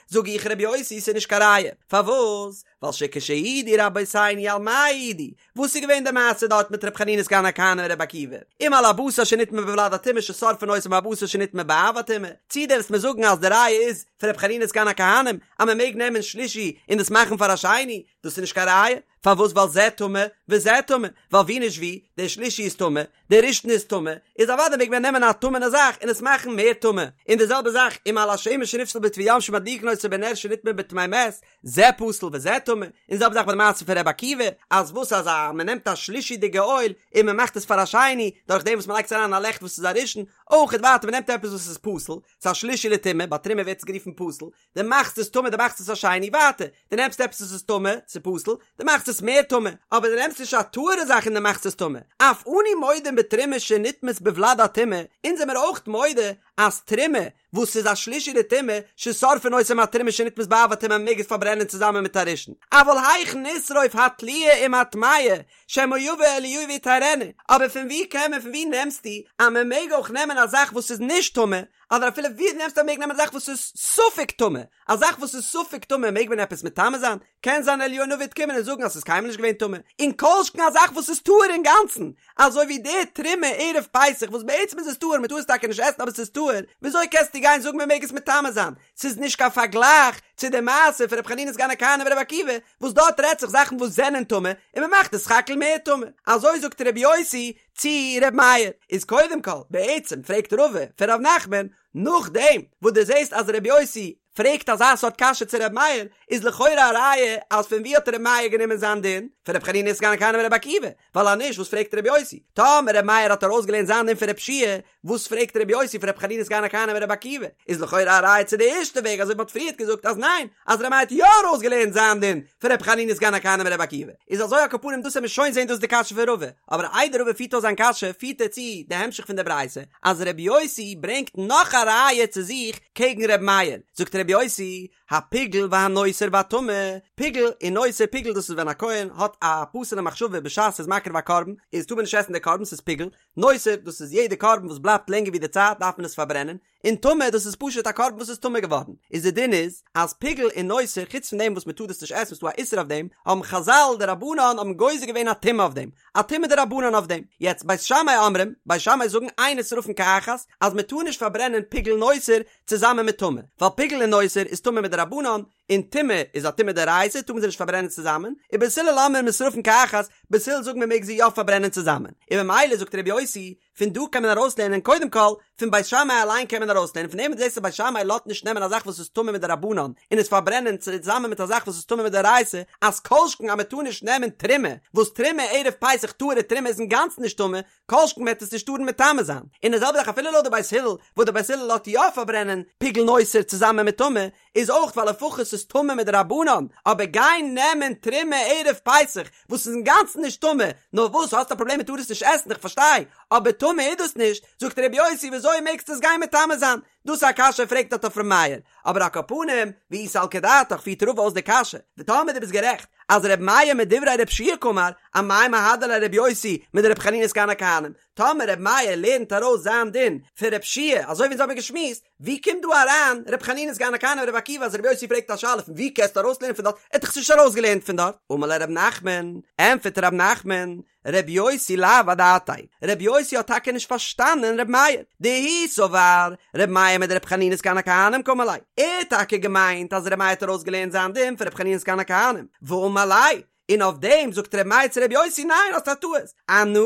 זאג איך ר' יוסי ס'איז נישט קיין ראיה, פארוואס? ווייל שכשהעידו רבותינו על מה העידו, וואס איז געווען די מעשה דארט מיט ר' חנינא סגן הכהנים און ר' עקיבא? אם על הבשר שנטמא בולד הטומאה ששורפין אותו עם הבשר שנטמא באב הטומאה? צי דו וועסט מיר זאגן אז די ראיה איז פון ר' חנינא סגן הכהנים אז מען מעג נעמען שלישי און דאס מאכן פאר א שני? דאס איז נישט קיין ראיה, פארוואס ווייל זה טמא וזה טמא, ווייל ווי נישט ווי, דער שלישי איז טמא, דער ראשון איז טמא, איז אוודאי מעג מען נעמען א טמא'נע זאך און עס מאכן מער טמא, און די זעלבע זאך אם על השמן שנפסל בטבול יום שמדליקין אותו בנר שנטמא בטמא מת, זה פסול וזה טמא, און די זעלבע זאך ביי די מעשה פון ר' עקיבא, אז וואס אז א מען נעמט א שלישי'דיגע אויל און מען מאכט עס פאר א שני, דורך דעם וואס מען לייגט עס אריין אין א לעכט וואס איז א ראשון, אויך ווייטער מען נעמט עפעס וואס איז פסול, ס'איז א שלישי לטומאה, ביי תרומה ווערט עס גערופן פסול, דו מאכסט עס טמא דו מאכסט עס א שני, ווייטער, דו נעמסט עפעס וואס איז טמא, ס'איז פסול, דו מאכסט עס מער טמא, אבער דו נעמסט נישט א טהור'ע זאך און דו מאכסט עס טמא, אף אנו מודים בתרומה שנטמאת בולד הטומאה, אונז זעמער אויך מודה אז תרומה וואס איז א שלישי לטומאה, ששורפין אותה עם התרומה שנטמאת באב הטומאה מ'מעג עס פארברענען צוזאמען מיט א ראשון, אבל היאך נשרוף התלויה עם הטמאה, שמא יבא אליהו ויטהרנה, אבער פון ווי קען מען פון ווי נעמסטו אז מען מעג אויך נעמען א זאך וואס איז נישט טמא, אדער אפילו ווי נעמסטו אז מען מעג נעמען א זאך וואס איז ספק טמא, א זאך וואס איז ספק טמא מעג מען עפעס מטמא זיין? קען זיין אליהו הנביא וועט קומען און זאגן אז ס'איז קיינמאל נישט געווען טמא, און כל שכן א זאך וואס איז טהור אינגאנצן, אזוי ווי די תרומה ערב פסח וואס בעצם איז עס טהור, מ'טאר עס טאקע נישט עסן אבער ס'איז טהור, וויאזוי קענסטו גיין זאגן מ'מעג עס מטמא זיין? ס'איז נישט קיין פארגלייך צו די מעשה פון ר' חנינא סגן הכהנים ור' עקיבא, וואס דארט רעדט זיך זאכן וואס זענען טמא, און מ'מאכט עס סך הכל מער טמא. אזוי זאגט ר' יוסי. צו ר' מאיר. איז קודם כל, בעצם פרעגט רבא פון ר' נחמן, נאכדעם וואס דו זעסט אז ר' יוסי פרעגט אזא סארט קשיא צו ר' מאיר, איז לכאורה א ראיה אז פון ווי האט ר' מאיר גענומען זיין דין? פון ר' חנינא סגן הכהנים ור' עקיבא, ווייל אז נישט וואס פרעגט ר' יוסי? טאמער ר' מאיר האט ארויסגעלערנט זיין דין פון ר' יהושע וואס פרעגט ר' יוסי פון ר' חנינא סגן הכהנים ור' עקיבא? איז לכאורה א ראיה צו די ערשטע וועג אזוי ווי מ'האט פריערט געזאגט אז ניין, אז ר' מאיר האט יא ארויסגעלערנט זיין דין פון ר' חנינא סגן הכהנים ור' עקיבא. איז אזוי על כל פנים דאס עמיר שוין זעהן דאס איז די קשיא פון רבא, אבער איידער רבא פירט אויס זיין קשיא פירט ער צו די המשך פון די ברייתא אז ר' יוסי ברענגט נאך א ראיה צו זיך קעגן ר' מאיר, זאגט ר' יוסי, הפיגול והנותר והטמא, פיגול און נותר, פיגול דאס איז ווען א כהן האט א פסול'ע מחשבה בשעת ס'איז מקריב א קרבן, איז טאר מען נישט עסן די קרבן ס'איז פיגול, נותר דאס איז יעדע קרבן וואס בלייבט לענגער ווי די צייט דארף מען עס פארברענען, און טמא דאס איז פשוט א קרבן וואס איז טמא געווארן, איז די דין איז אז פיגול און נותר חוץ פון דעם וואס מען טאר דאס נישט עסן ס'איז דא א איסור אויף דעם, האבן חזל די רבנן האבן גוזר געווען א טומאה אויף דעם, א טומאה דרבנן אויף דעם. יעצט בית שמאי אומרים, בית שמאי זאגן אין נשרפין כאחת, אז מען טאר נישט פארברענען פיגול נותר צוזאמען מיט טמא, ווייל פיגול און נותר איז טמא מדרבנן, און טומאה איז א טומאה דאורייתא טאר מען זיי נישט פארברענען צוזאמען, ובית הלל אומרים נשרפין כאחת, בית הלל זאגן מען מעג זיי יא פארברענען צוזאמען, און ממילא זאגט ר' יוסי, פון דא קען מען ארויסלערנען קודם כל, פון בית שמאי אליין קען מען ארויסלערנען, פון דעם וואס דו זעסט אז בית שמאי לאזט נישט נעמען א זאך וואס איז טמא מדרבנן און עס פארברענען צוזאמען מיט א זאך וואס איז טמא מדאורייתא, אז כל שכן אז מען טאר נישט נעמען תרומה, וואס תרומה ערב פסח טהור'ע תרומה איז אינגאנצן נישט טמא, כל שכן וועט עס נישט טארן מטמא זיין. און די זעלבע זאך אפילו לויט די בית הלל, וואס די בית הלל לאזט יא פארברענען פיגול נותר צוזאמען מיט טמא, איז אויך ווייל לפחות ס'איז טמא מדרבנן, אבער גיין נעמען תרומה ערב פסח וואס איז אינגאנצן נישט טמא, נאר וואס האסט א פראבלעם מ'טאר עס נישט עסן איך פארשטיי, אבער טמא איז דאס נישט, זאגט ר' יוסי וויאזוי מעגסטו עס גיין מטמא זיין? דאס איז א קשיא פרעגט דארט אויף ר' מאיר, אבער על כל פנים, ואי סלקא דעתך פירט רבא אויס די קשיא, וטאמער דו ביסט גערעכט אז ר' מאיר מדברי ר' יהושע קאמר, אמאי מהדר ליה ר' יוסי מדר' חנינא סגן הכהנים, טאמער ר' מאיר לערנט ארויס זיין דין פון ר' יהושע אזוי ווי אונז האבן געשמועסט, ווי קומט דא אריין ר' חנינא סגן הכהנים ור' עקיבא אז ר' יוסי פרעגט א שאלה פון ווי קענסטו ארויסלערנען פון דארט, ער האט דאך עס נישט ארויסגעלערנט פון דארט. אמר ליה ר' נחמן, ענטפערט ר' נחמן, ר' יוסי לאו אדעתיה, ר' יוסי האט טאקע נישט פארשטאנען ר' מאיר, דהוא סבר ר' מאיר מדר' חנינא סגן הכהנים קאמר ליה, ער האט טאקע געמיינט אז ר' מאיר האט ארויסגעלערנט זיין דין פון ר' חנינא סגן הכהנים, ואמר ליה, און אויף דעם זאגט ר' מאיר צו ר' יוסי ניין האסט א טעות, אנא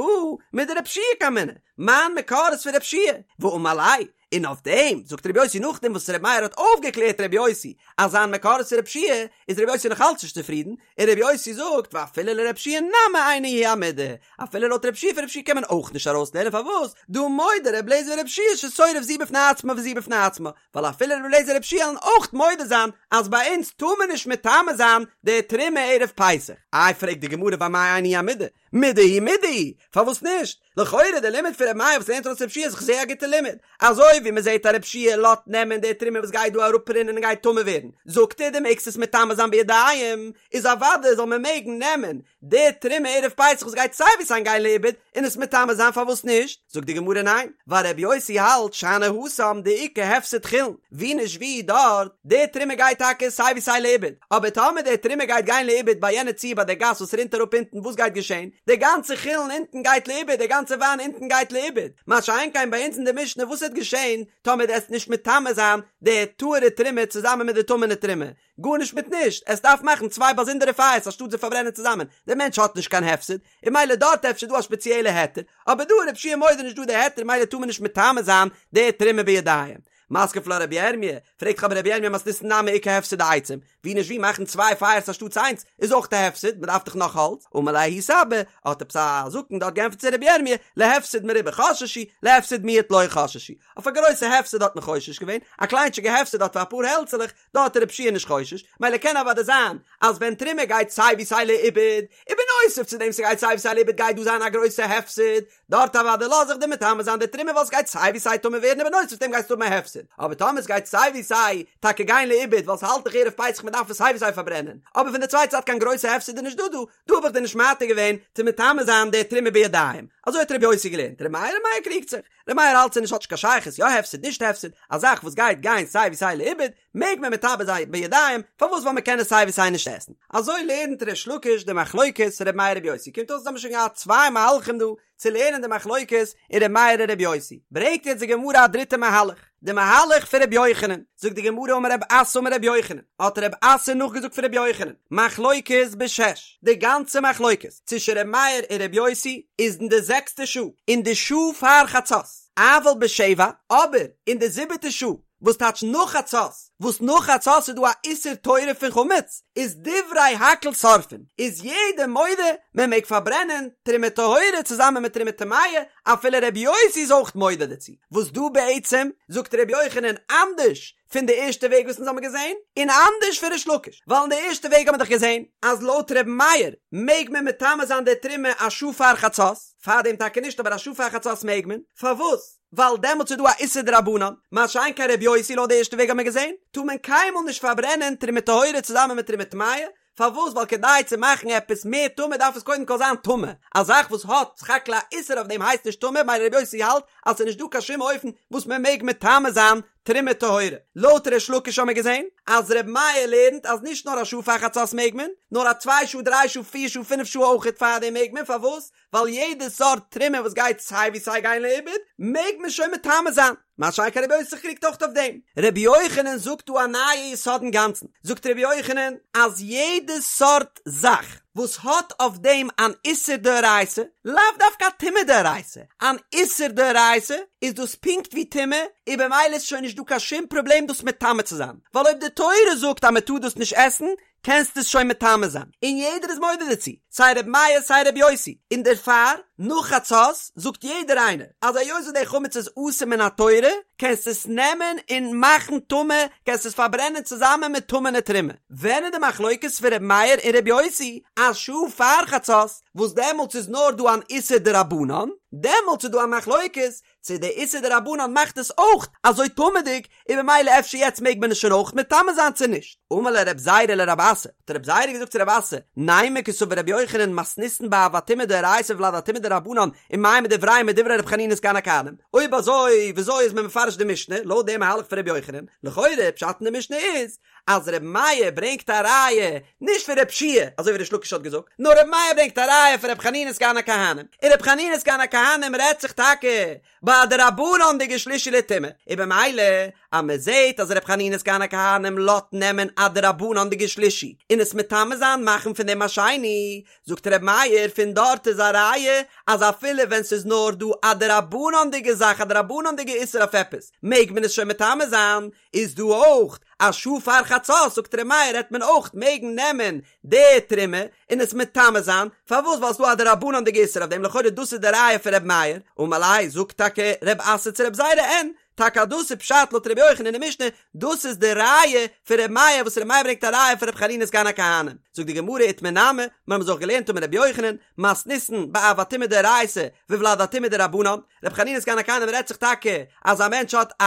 מדר' יהושע קאמינא, מיין מקור איז פון ר' יהושע, ואמר ליה, און אויף דעם זאגט ר' יוסי נאכדעם וואס ר' מאיר האט אויפגעקלערט ר' יוסי אז זיין מקור איז פון ר' יהושע, איז ר' יוסי נאך אלץ נישט צופרידן, און ר' יוסי זאגט ואפילו לר' יהושע נמי אינה היא המידה, אפילו לויט ר' יהושע פון ר' יהושע קען מען אויך נישט ארויסלערנען פארוואס דהא מודה ר' אליעזר ור' יהושע ששורף זו בפני עצמה וזו בפני עצמה, ווייל אפילו ר' אליעזר ר' יהושע וועלן אויך מודה זיין אז ביי אונז טאר מען נישט מטמא זיין די תרומה ערב פסח. איי פרעגט די גמרא ואמאי אינה היא המידה, מידה היא מידה היא, פארוואס נישט? לכאורה די לימוד פון ר' מאיר וואס לערנט ארויס ר' יהושע איז דאך זייער א גוטע לימוד, אזוי ווי מען זעט אז ר' יהושע לאזט נעמען די תרומה וואס גייט דא אראפרינען און גייט טמא ווערן, זאגט ער דו מעגסט עס מטמא זיין בידיים, איז אוודאי זאל מען מעגן נעמען די תרומה ערב פסח וואס גייט סיי ווי סיי גיין לאיבוד און עס מטמא זיין פארוואס נישט? זאגט די גמרא ניין, ווייל רבי יוסי האלט שאני התם דאיכא הפסד חולין, ווי נישט ווי דארט, די תרומה גייט טאקע סיי ווי סיי לאיבוד, אבער טאמער די תרומה גייט גיין לאיבוד ביי יענע ציור ביי די גאס וואס רינט אראפ אונטן וואס גייט געשען? די גאנצע חולין אונטן גייט לאיבוד, די גאנצע וויין אונטן גייט לאיבוד, מה שאין כן ביי אונז אין די משנה וואס וועט געשען טאמער דו עסט נישט מטמא זיין די טהור'ע תרומה צוזאמען מיט די טמא'נע תרומה, גארנישט מיט נישט, עס דארף מאכן צוויי באזונדערע פייערס אנשטאט זיי פארברענען צוזאמען, דער מענטש האט נישט קיין הפסד, און מילא דארט אפשר דא א שפעציעלע היתר, אבער דא איז רבי יהושע מודה נישט דא די היתר מילא טאר מען נישט מטמא זיין די תרומה בידיים. מתקיף לה רבי ירמי', פרעגט אבער רבי ירמי' מתניתין נמי איכא הפסד דעצים, ווי נישט ווי מאכן צוויי פייערס אנשטאטס איינס איז אויך א הפסד, מען דארף דאך נאך האלץ, אמר ליה ההוא סבא, האט עפעס א זקן דארט געענטפערט צו רבי ירמי', להפסד מרובה חששו, להפסד מועט לא חששו, אויף א גרויסע הפסד האט מען חושש געווען, א קליינטשיגע הפסד דארט פאר אפאר העלצעלעך, דארט איז רבי יהושע נישט חושש, מילא קען אוודאי זיין אז ווען תרומה גייט סיי ווי סיי לאיבוד, און בנוסף צו דעם ס'גייט סיי ווי סיי לאיבוד גייט דא זיין א גרויסע הפסד, דארט אוודאי לאז איך דיר מטמא זיין די תרומה ווייל ס'גייט סיי ווי סיי טמא ווערן און בנוסף צו דעם גייסטו האבן א הפסד, אבער טאמער ס'גייט סיי ווי סיי טאקע גיין לאיבוד ווייל ס'האלט דאך ערב פסח מ'דארף עס סיי ווי סיי פארברענען, אבער פון די צווייטע זייט קיין גרויסע הפסד איז נישט דא דא, דא האב איך דיר נישט מתיר געווען צו מטמא זיין די תרומה בידיים, אזוי האט רבי יוסי געלערנט, רבי מאיר, רבי מאיר קריגט זיך. ר' מאיר האלט ס'נישט האט נישט קיין שייכות יא הפסד נישט הפסד, א זאך וואס גייט גיין סיי ווי סיי לאיבוד, מעג מען מטמא זיין בידיים, פארוואס ווייל מען קען עס סיי ווי סיי נישט עסן. אזוי לערנט ריש לקיש די מחלוקת ר' מאיר ר' יוסי, קומט אויס אז האבן שוין געהאט צוויי מהלכים דא צו לערנען די מחלוקת אין ר' מאיר און ר' יוסי, ברענגט יעצט די גמרא א דריטע מהלך, די מהלך פון ר' יוחנן. זאגט די גמרא אמר רב אסי אמר רבי יוחנן, האט רב אסי נאכגעזאגט פון רבי יוחנן, מחלוקת בשש, די גאנצע מחלוקת צווישן רבי מאיר און רבי יוסי איז אין די זעקסטע שעה, אין די שעה פאר חצות, אבל בשבע, אבער אין די זיבעטע שעה, וואס טייטש נאך חצות, וואס נאך חצות איז דא א איסור תורה פון חמץ, איז דברי הכל שורפין, איז יעדער מודה מען מעג פארברענען תרומה טהורה צוזאמען מיט תרומה טמאה, אפילו ר' יוסי איז אויך מודה דערצו, וואס דא בעצם זאגט ר' יוחנן אנדערש פון די ערשטע וועג וואס אונז האבן געזען, און אנדערש פון ריש לקיש, ווייל אין די ערשטע וועג האבן מיר דאך געזען אז לויט ר' מאיר מעג מען מטמא זיין די תרומה א שעה פאר חצות, פארדעם טאקע נישט אבער א שעה פאר חצות מעג מען, פארוואס? ווייל דעמאלטס איז דא א איסור דרבנן, מה שאין כן ר' יוסי לויט די ערשטע וועג האבן מיר געזען, טאר מען קיינמאל נישט פארברענען תרומה טהורה צוזאמען מיט תרומה טמאה, פארוואס? ווייל כדי צו מאכן עפעס מער טמא דארף עס קודם כל זיין טמא, א זאך וואס האט סך הכל א איסור אויף דעם הייסט נישט טמא, ממילא ר' יוסי האלט אז ס'איז נישט דא קיין שום אופן וואס מען מעג מטמא זיין תרומה טהורה. לויט ריש לקיש האמיר געזען אז ר' מאיר לערנט אז נישט נאר א שעה פאר חצות מעג מען, נאר א צוויי שעה דריי שעה פיר שעה פינף שעה אויכעט פארדעם מעג מען, פארוואס? ווייל יעדע סארט תרומה וואס גייט סיי ווי סיי גיין לאיבוד מעג מען שוין מטמא זיין, מה שאין כן רבי יוסי קריגט אויך אויף דעם. רבי יוחנן זאגט דא א נייע יסוד אינגאנצן, זאגט רבי יוחנן אז יעדע סארט זאך וואס האט אויף דעם אן איסור דאורייתא, לאו דווקא א טומאה דאורייתא, אן איסור דאורייתא, איז דאס פונקט ווי טומאה, און במילא איז שוין נישט דא קיין שום פראבלעם דאס מטמא צו זיין, ווייל אויב די תורה זאגט אז מען טאר דאס נישט עסן, קענסט עס שוין מטמא זיין, און יעדער איז מודה דערצו, סיי ר' מאיר סיי ר' יוסי, און דערפאר, נאך חצות, זאגט יעדער איינער, אז היות וואס די חמץ איז אסור מן התורה, קענסט עס נעמען און מאכן טמא, קענסט עס פארברענען צוזאמען מיט טמא'נע תרומה. ווען איז די מחלוקת פון ר' מאיר און ר' יוסי, א שעה פאר חצות, וואס דעמאלטס איז נאר דא אן איסור דרבנן, דעמאלטס איז דא א מחלוקת, צו די איסור דרבנן מאכט עס אויך אזוי טמא'דיג, און במילא אפשר יעצט מעג מען עס שוין אויך מטמא זיין צו נישט. אמר ליה רב זירא לרב אסי, האט רב זירא געזאגט צו רב אסי, נימא קסבר רבי יוחנן מתניתין באב הטומאה דאורייתא ולד הטומאה דרבנן ומאי מדבריהם מדברי רבי חנינא סגן הכהנים, אויב אזוי וויאזוי איז מען מפרש די משנה לויט די מהלך פון רבי יוחנן, לכאורה פשט אין די משנה איז אז ר' מאיר ברענגט א ראיה נישט פון ר' יהושע אזוי ווי ריש לקיש האט געזאגט, נאר ר' מאיר ברענגט א ראיה פון ר' חנינא סגן הכהנים, און ר' חנינא סגן הכהנים רעדט זיך טאקע ביי א דרבנן'דיגע שלישי לטומאה, און במילא אז מען זעט אז ר' חנינא סגן הכהנים לאזט נעמען א דרבנן'דיגע שלישי און עס מטמא זיין מאכן פון דעם א שני, זאגט ר' מאיר פון דארט איז א ראיה אז אפילו ווען ס'איז נאר דא א דרבנן'דיגע זאך א דרבנן'דיגע איסור אויף עפעס מעג מען עס שוין מטמא זיין, איז דא אויך א שעה פאר חצות זאגט ר' מאיר העט מען אויך מעגן נעמען די תרומה און עס מטמא זיין, פארוואס ווייל ס'דא א דרבנן'דיגע איסור אויף דעם לכאורה דאס איז די ראיה פון ר' מאיר, אמר ליה זאגט טאקע ר' אסי צו ר' זירא אין, טאקע אז דאס איז פשט לויט ר' יוחנן אין די משנה, דאס איז די ראיה פון ר' מאיר וואס ר' מאיר ברענגט א ראיה פון ר' חנינא סגן הכהנים, זאגט די גמרא איתמר נמי, מיר האבן עס אויך געלערנט אמר ר' יוחנן, מתניתין באב הטומאה דאורייתא וולד הטומאה דרבנן, רבי חנינא סגן הכהנים רעדט זיך טאקע אז א מענטש האט א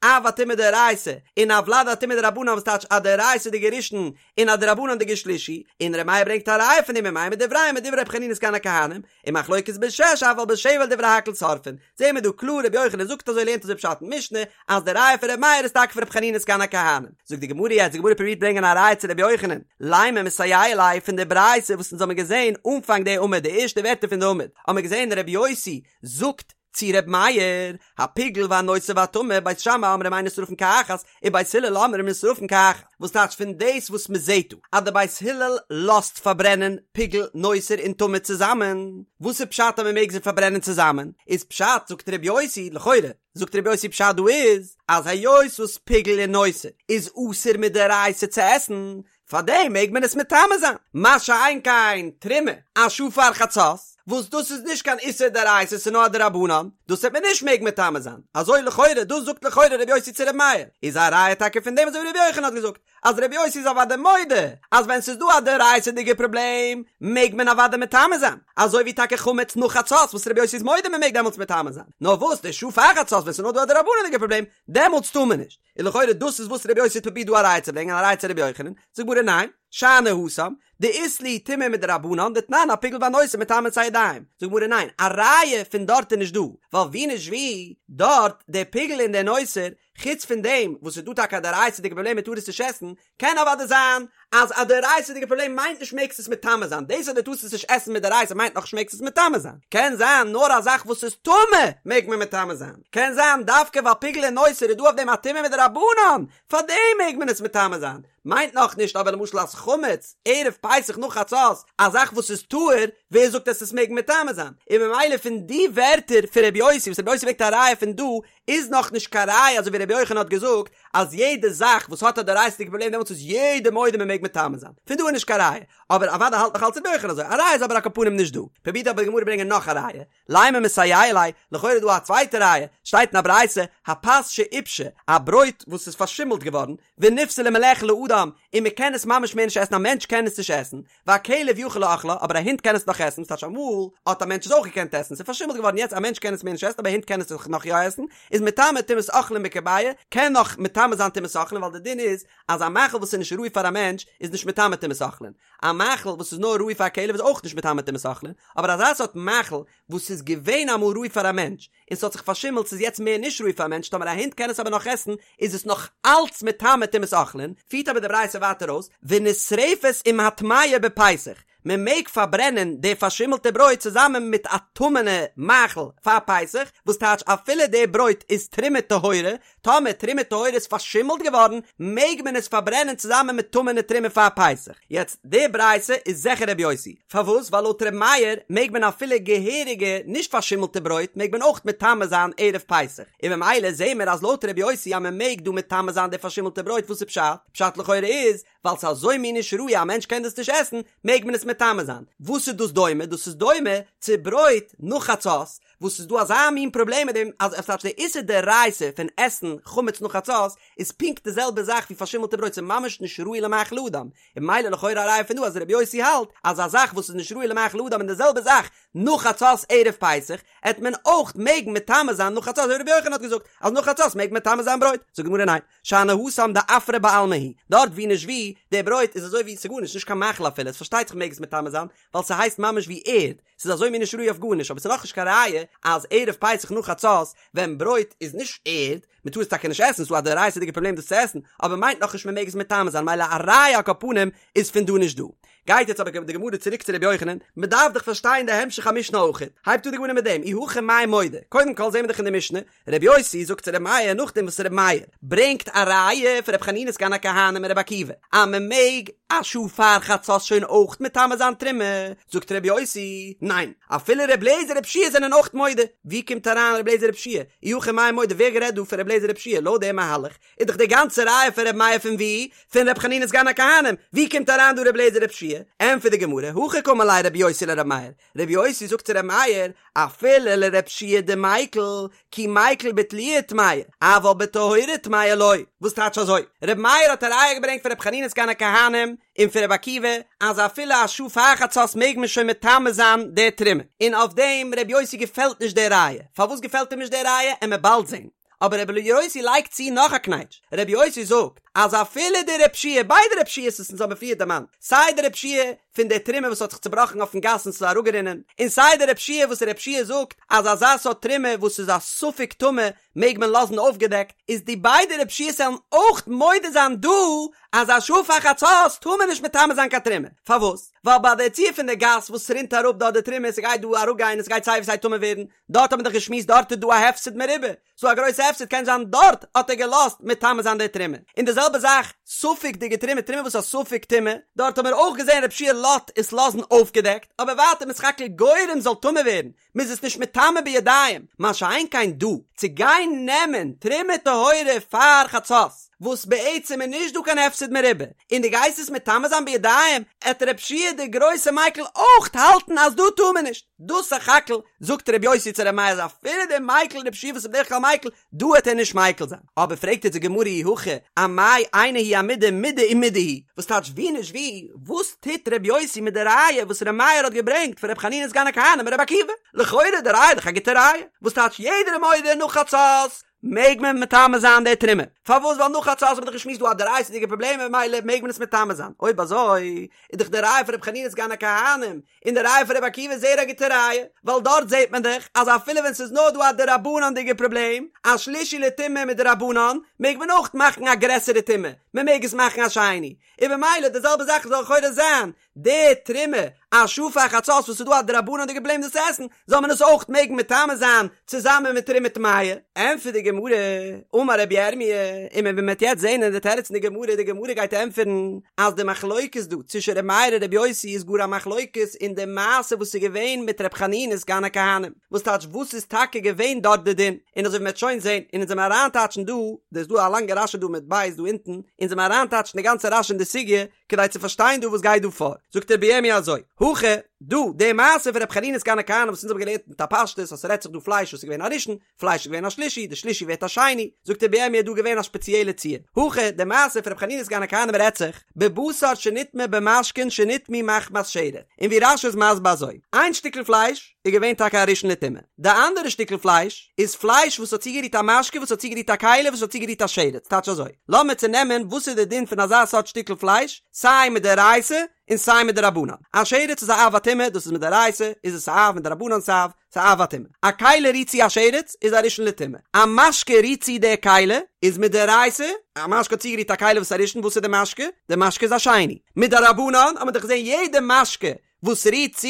אב הטומאה דאורייתא און א ולד הטומאה דרבנן וואס טייטש א דאורייתא'דיגע ראשון און א דרבנן'דיגע שלישי, און ר' מאיר ברענגט א ראיה פון דעם ומאי מדבריהם מדברי רבי חנינא סגן הכהנים, און מחלוקת בשש אבל בשבע דברי הכל שורפין, זעהן מיר דא קלאר רבי יוחנן זאגט אזוי לערנט אזוי פשט אין משנה אז די ראיה פון ר' מאיר איז טאקע פון רבי חנינא סגן הכהנים. זאגט די גמרא יעצט די גמרא פרובירט ברענגען א ראיה צו רבי יוחנן, לימא מסייע ליה פון די ברייתא וואס אונז האבן געזעהן אנפאנג די עמוד די ערשטע ווערטער פון די עמוד האבן מיר געזעהן רבי יוסי זאגט צו ר' מאיר, הפיגול והנותר והטמא, בית שמאי אומרים אין נשרפין כאחת, ובית הלל אומרים נשרפין כאחת, וואס טייטש פון דאס וואס מען זעט דא אז די בית הלל לאזט פארברענען פיגול, נותר און טמא צוזאמען, וואס איז פשט אז מען מעג זיי פארברענען צוזאמען, איז פשט זאגט ר' יוסי, לכאורה זאגט ר' יוסי פשט דא איז, אז היות וואס פיגול און נותר איז אסור מדאורייתא צו עסן, פאר דעם מעג מען עס מטמא זיין, מה שאין כן תרומה א שעה פאר חצות, וואס דאס איז נישט קיין איסור דאורייתא ס'איז נאר א דרבנן, דאס וועט מען נישט מעגן מטמא זיין, אזוי לכאורה, דאס זאגט לכאורה ר' יוסי צו ר' מאיר, איז א ראיה טאקע פון דעם אזוי ווי ר' יוחנן האט געזאגט, אז ר' יוסי איז אוודאי מודה אז ווען ס'איז דא א דאורייתא'דיגע פראבלעם מעג מען אוודאי מטמא זיין, אזוי ווי טאקע חמץ נאך חצות וואס ר' יוסי איז מודה מען מעג דעמאלטס מטמא זיין, נאר וואס די שעה פאר חצות ווען ס'איז נאר דא א דרבנן'דיגע פראבלעם דעמאלטס טאר מען נישט. און לכאורה דאס איז וואס רבי יוסי האט פרובירט דא א ראיה צו ברענגען א ראיה צו רבי יוחנן, זאגט גמרא ניין, שאני התם, דאית להו טומאה מדרבנן דתנן הפיגול והנותר מטמאין את הידיים, זאגט גמרא ניין, א ראיה פון דארט איז נישט דא, ווייל ווי נישט ווי, דארט, דער פיגול און דער נותר, חוץ פון דעם וואס ס'איז דא טאקע א דאורייתא'דיגע פראבלעם מ'טאר עס נישט עסן, קען אוודאי זיין אז א דאורייתא'דיגע פראבלעם מיינט נישט מעגסט עס מטמא זיין, דאס אז דו טארסט עס נישט עסן מדאורייתא מיינט נאכנישט מעגסט עס מטמא זיין, קען זיין נאר א זאך וואס איז טמא מעג מען מטמא זיין, קען זיין דווקא ווייל פיגול און נותר איז דא אויף דעם א טומאה מדרבנן, פארדעם מעג מען עס מטמא זיין, מיינט נאכנישט אבער למשל אז חמץ ערב פסח נאך חצות, א זאך וואס איז טהור, ווער זאגט אז עס מעג מטמא זיין? און ממילא פון די ווערטער פון רבי יוסי וואס רבי יוסי ברענגט א ראיה פון דא, איז נאך נישט קיין ראיה אזוי ווי רבי יוחנן האט געזאגט אז יעדע זאך וואס האט א דאורייתא'דיגע פראבלעם דעמאלטס איז יעדער מודה מען מעג מטמא זיין, פון דא איז נישט קיין ראיה, אבער אוודאי האלט נאך אלץ רבי יוחנן אזוי, א ראיה איז אבער על כל פנים נישט דא, פרובירט אבער די גמרא ברענגען נאך א ראיה, לימא מסייע ליה, לכאורה איז דא א צווייטע ראיה, שטייט אין א ברייתא, הפת שעיפשה, א ברויט וואס איז פארשימלט געווארן, ונפסלה מלאכול לאדם, און מען קען עס ממש מער נישט עסן, א מענטש קען עס נישט עסן, והכלב יכול לאכלה, אבער א הונט קען עס נאך עסן, ס'טייטש אמאל האט א מענטש עס אויך געקענט עסן, ס'איז פארשימלט געווארן יעצט א מענטש קען עס מער נישט עסן אבער א הונט קען עס נאך יא עסן, איז מטמא טומאת אוכלים בכביעה, קען נאך מטמא זיין טומאת אוכלים ווייל די דין איז אז א מאכל וואס איז נישט ראוי פאר א מענטש איז נישט מטמא טומאת אוכלים, א מאכל וואס איז נאר ראוי פאר א כלב איז אויך נישט מטמא טומאת אוכלים, אבער אזא סארט מאכל וואס איז געווען אמאל ראוי פאר א מענטש און ס'האט זיך פארשימלט ס'איז יעצט מער נישט ראוי פאר א מענטש טאמער א הונט קען עס אבער נאך עסן איז עס נאך אלץ מטמא טומאת אוכלין, פירט אבער די ברייתא ווייטער אויס ונשרפת עם הטמאה בפסח, מען מעג פארברענען די פארשימלטע ברויט צוזאמען מיט א טמא'נע מאכל פאר פסח, וואס טייטש אפילו די ברויט איז תרומה טהורה, טאמער תרומה טהורה איז פארשימלט געווארן, מעג מען עס פארברענען צוזאמען מיט טמא'נע תרומה פאר פסח. יעצט, די ברייתא איז זיכער רבי יוסי. פארוואס? ווייל לויט רבי מאיר מעג מען אפילו געהעריגע נישט פארשימלטע ברויט מעג מען אויך מטמא זיין ערב פסח. און ממילא זעהן מיר אז לויט רבי יוסי אז מען מעג דא מטמא זיין די פארשימלטע ברויט וואס איז פשט? פשט לכאורה איז ווייל ס'איז אזוי מין נישט ראוי א מענטש קען דאס נישט עסן מעג מען עס מטמא זיין. וואס איז דאס דומה? דאס איז דומה צו ברויט נאך חצות וואס איז דא אזא מין פראבלעם מיט דעם אז עס די איסור דאורייתא פון עסן חמץ נאך חצות איז פונקט די זעלבע זאך ווי פארשימלטע ברויט ס'איז ממש נישט ראוי למאכל אדם און ממילא לכאורה א ראיה פון דא אז רבי יוסי האלט אז א זאך וואס איז נישט ראוי למאכל אדם און די זעלבע זאך נאך חצות ערב פסח עט מען אויך מעגן מטמא זיין נאך חצות אזוי ווי רבי יוחנן האט געזאגט אז נאך חצות מעג מען מטמא זיין ברויט זאגט די גמרא ניין שאני התם דעפרא בעלמא הוא דארט ווי נישט ווי די ברויט איז אזוי ווי ס'גארנישט נישט קיין מאכל אפילו עס פארשטייט זיך מעג עס מטמא זיין ווייל ס'הייסט ממש ווי ערד ס'איז אזוי מין נישט ראוי אויף גארנישט, אבער ס'איז נאכנישט קיין ראיה אז ערב פסח נאך חצות ווען ברויט איז נישט ערד, מ'טאר עס טאקע נישט עסן, ס'איז דא א דאורייתא'דיגע פראבלעם דאס צו עסן, אבער מיינט נאכנישט מ'מעג עס מטמא זיין, מילא א ראיה על כל פנים איז פון דא נישט דא. גייט יעצט אבער די גמרא צוריק צו רבי יוחנן, מ'דארף דאך פארשטיין די המשך המשנה אויכעט, הייבט אן די גמרא מיט דעם, אי הכי מאי מודה, קודם כל זעהן מיר דאך אין די משנה, רבי יוסי זאגט צו רבי מאיר נאכדעם וואס רבי מאיר ברענגט א ראיה פון רבי חנינא סגן הכהנים און רבי עקיבא אז מען מעג א שעה פאר חצות שוין אויך מטמא זיין תרומה, זאגט רבי יוסי, ניין, אפילו רבי אליעזר רבי יהושע זענען אויך מודה, ווי קומט אריין רבי אליעזר רבי יהושע? אי הכי מאי מודה ווער גערעדט דא פון רבי אליעזר רבי יהושע? לויט דעם מהלך איז דאך די גאנצע ראיה פון רבי מאיר פון ווי? פון רבי חנינא סגן הכהנים, ווי קומט אריין דא רבי אליעזר רבי יהושע? ענטפערט די גמרא, הכי קאמר ליה רבי יוסי לרבי מאיר, רבי יוסי זאגט צו רבי מאיר, אפילו לרבי יהושע דמיקל, כי מיקל בתלויה טמאה, אבל בטהורה טמאה לא. וואס טייטש אזוי? רבי מאיר האט א ראיה געברענגט פון רבי חנינא סגן הכהנים און פון רבי עקיבא, אז אפילו א שעה פאר חצות מעג מען שוין מטמא זיין די תרומה. און אויף דעם רבי יוסי געפעלט נישט די ראיה. פארוואס געפעלט אים נישט די ראיה? עמיר באלד זען. אבער רבי יוסי לייגט צו נאך א קנייטש, רבי יוסי זאגט אז אפילו די רבי יהושע, ביידע רבי יהושע'ס וואס אונז האבן פריער דערמאנט, סיי די רבי יהושע פון די תרומה וואס האט זיך צובראכן אויפן גאס און ס'איז אראפגערינען, און סיי די רבי יהושע וואס רבי יהושע זאגט אז אזא סארט תרומה וואס איז א ספק טמא מעג מען לאזן אויפגעדעקט, איז די ביידע רבי יהושע'ס וועלן אויך מודה זיין דא אז א שעה פאר חצות טאר מען נישט מטמא זיין קיין תרומה, פארוואס? ווייל ביי די ציור פון די גאס וואס ס'רינט אראפ דארט די תרומה, ס'גייט דא אראפגיין און ס'גייט סיי ווי סיי טמא ווערן, דארט האט מען דאך געשמועסט דארט איז דא א הפסד מרובה, ס'דא א גרויסע הפסד קען זיין דארט האט ער געלאזט מטמא זיין די תרומה, און די זעלבע זאך ספק'דיגע תרומה, תרומה וואס איז א ספק טומאה, דארט האט מען אויך געזען רבי יהושע לאזט עס לאזן אויפגעדעקט, אבער ווייטער מ'איז סך הכל גורם זאל טמא ווערן, מ'איז עס נישט מטמא בידיים, מה שאין כן דא, צו גיין נעמען תרומה טהורה פאר חצות, וואס בעצם איז נישט דא קיין הפסד מרובה, און דו גייסט עס מטמא זיין בידיים, עט רבי יהושע דער גרויסע מיקל אויך האלטן אז דא טאר מען נישט. דאס סך הכל זאגט ר' יוסי צו ר' מאיר אז אפילו דער מיקל רבי יהושע וואס איז בדרך כלל מיקל, דא העט ער נישט מיקל זיין. אבער פרעגט יעצט די גמרא אי הכי אמאי אינה היא אמידה מידי ומידי הוא, וואס טייטש ווי נישט ווי, וואס טוט ר' יוסי מיט די ראיה וואס ר' מאיר האט געברענגט פון ר' חנינא סגן הכהנים און ר' עקיבא? לכאורה די ראיה איז דאך א גוטע ראיה, וואס טייטש יעדער איז מודה נאך חצות? מעג מען מטמא זיין די תרומה. פארוואס ווייל נאך חצות האט מען דאך געשמועסט דא א דאורייתא'דיגע פראבלעם און ממילא מעג מען עס מטמא זיין. אויב אזוי איז דאך די ראיה פון ר' חנינא סגן הכהנים און די ראיה פון ר' עקיבא זייער א גוטע ראיה, ווייל דארט זעט מען דאך אז אפילו ווען ס'איז נאר דא א דרבנן'דיגע פראבלעם, א שלישי לטומאה מדרבנן, מעג מען אויך מאכן א גרעסערע טומאה, מען מעג עס מאכן א שני. און במילא די זעלבע זאך זאל לכאורה זיין די תרומה א שעה פאר חצות וואס איז דא א דרבנן'דיגע פראבלעם דאס עסן, זאל מען עס אויך מעגן מטמא זיין צוזאמען מיט תרומה טמאה. ענטפערט די גמרא, אמר רבי ירמי', און מען וועט יעצט זען אין די תירוץ אין די גמרא, די גמרא גייט ענטפערן אז די מחלוקת דא צווישן רבי מאיר און רבי יוסי איז גאר א מחלוקת אין די מעשה וואס איז געווען מיט רבי חנינא סגן הכהנים, וואס טייטש וואס איז טאקע געווען דארט די דין, און אזוי ווי מען וועט שוין זען, און אונז וועלן אריינטייטשן דא, דא איז דא א לאנגע רשי דא מיט בית דא אונטן, אונז וועלן אריינטייטשן די גאנצע רשי אין די סוגיא, כדי צו פארשטיין דא וואס גייט דא פאר, זאגט רבי ירמי' אזוי, הכא, דא, די מעשה פון רבי חנינא סגן הכהנים וואס אונז האבן געלערנט מיט א פשטות אז ס'רעדט זיך דא פלייש וואס איז געווען א ראשון, פלייש איז געווען א שלישי, די שלישי ווערט א שני, זאגט רבי ירמי' דא געווען א שפעציעלע ציור, הכא, די מעשה פון רבי חנינא סגן הכהנים רעדט זיך, בבשר שנטמא במשקין שנטמאו מחמת שרץ, און ווי רשי איז מסביר אזוי, איין שטיקל פלייש איז געווען טאקע א ראשון לטומאה, די אנדערע שטיקל פלייש איז פלייש וואס האט צוגערירט א משקה וואס האט צוגערירט א כלי וואס האט צוגערירט א שרץ, טייטש אזוי, לאמיר צונעמען וואס איז די דין פון אזא סארט שטיקל פלייש, סיי מדאורייתא און סיי מדרבנן, א שרץ איז א אב הטומאה, דאס איז מדאורייתא, איז עס א אב מדרבנן ס'אב, ס'איז א אב הטומאה. א כלי רירט צו א שרץ איז א ראשון לטומאה. א משקה רירט צו די כלי איז מדאורייתא, א משקה האט צוגערירט א כלי וואס איז א ראשון, וואס איז די משקה? די משקה איז א שני. מדרבנן האט מען דאך געזען יעדע משקה וואס רירט צו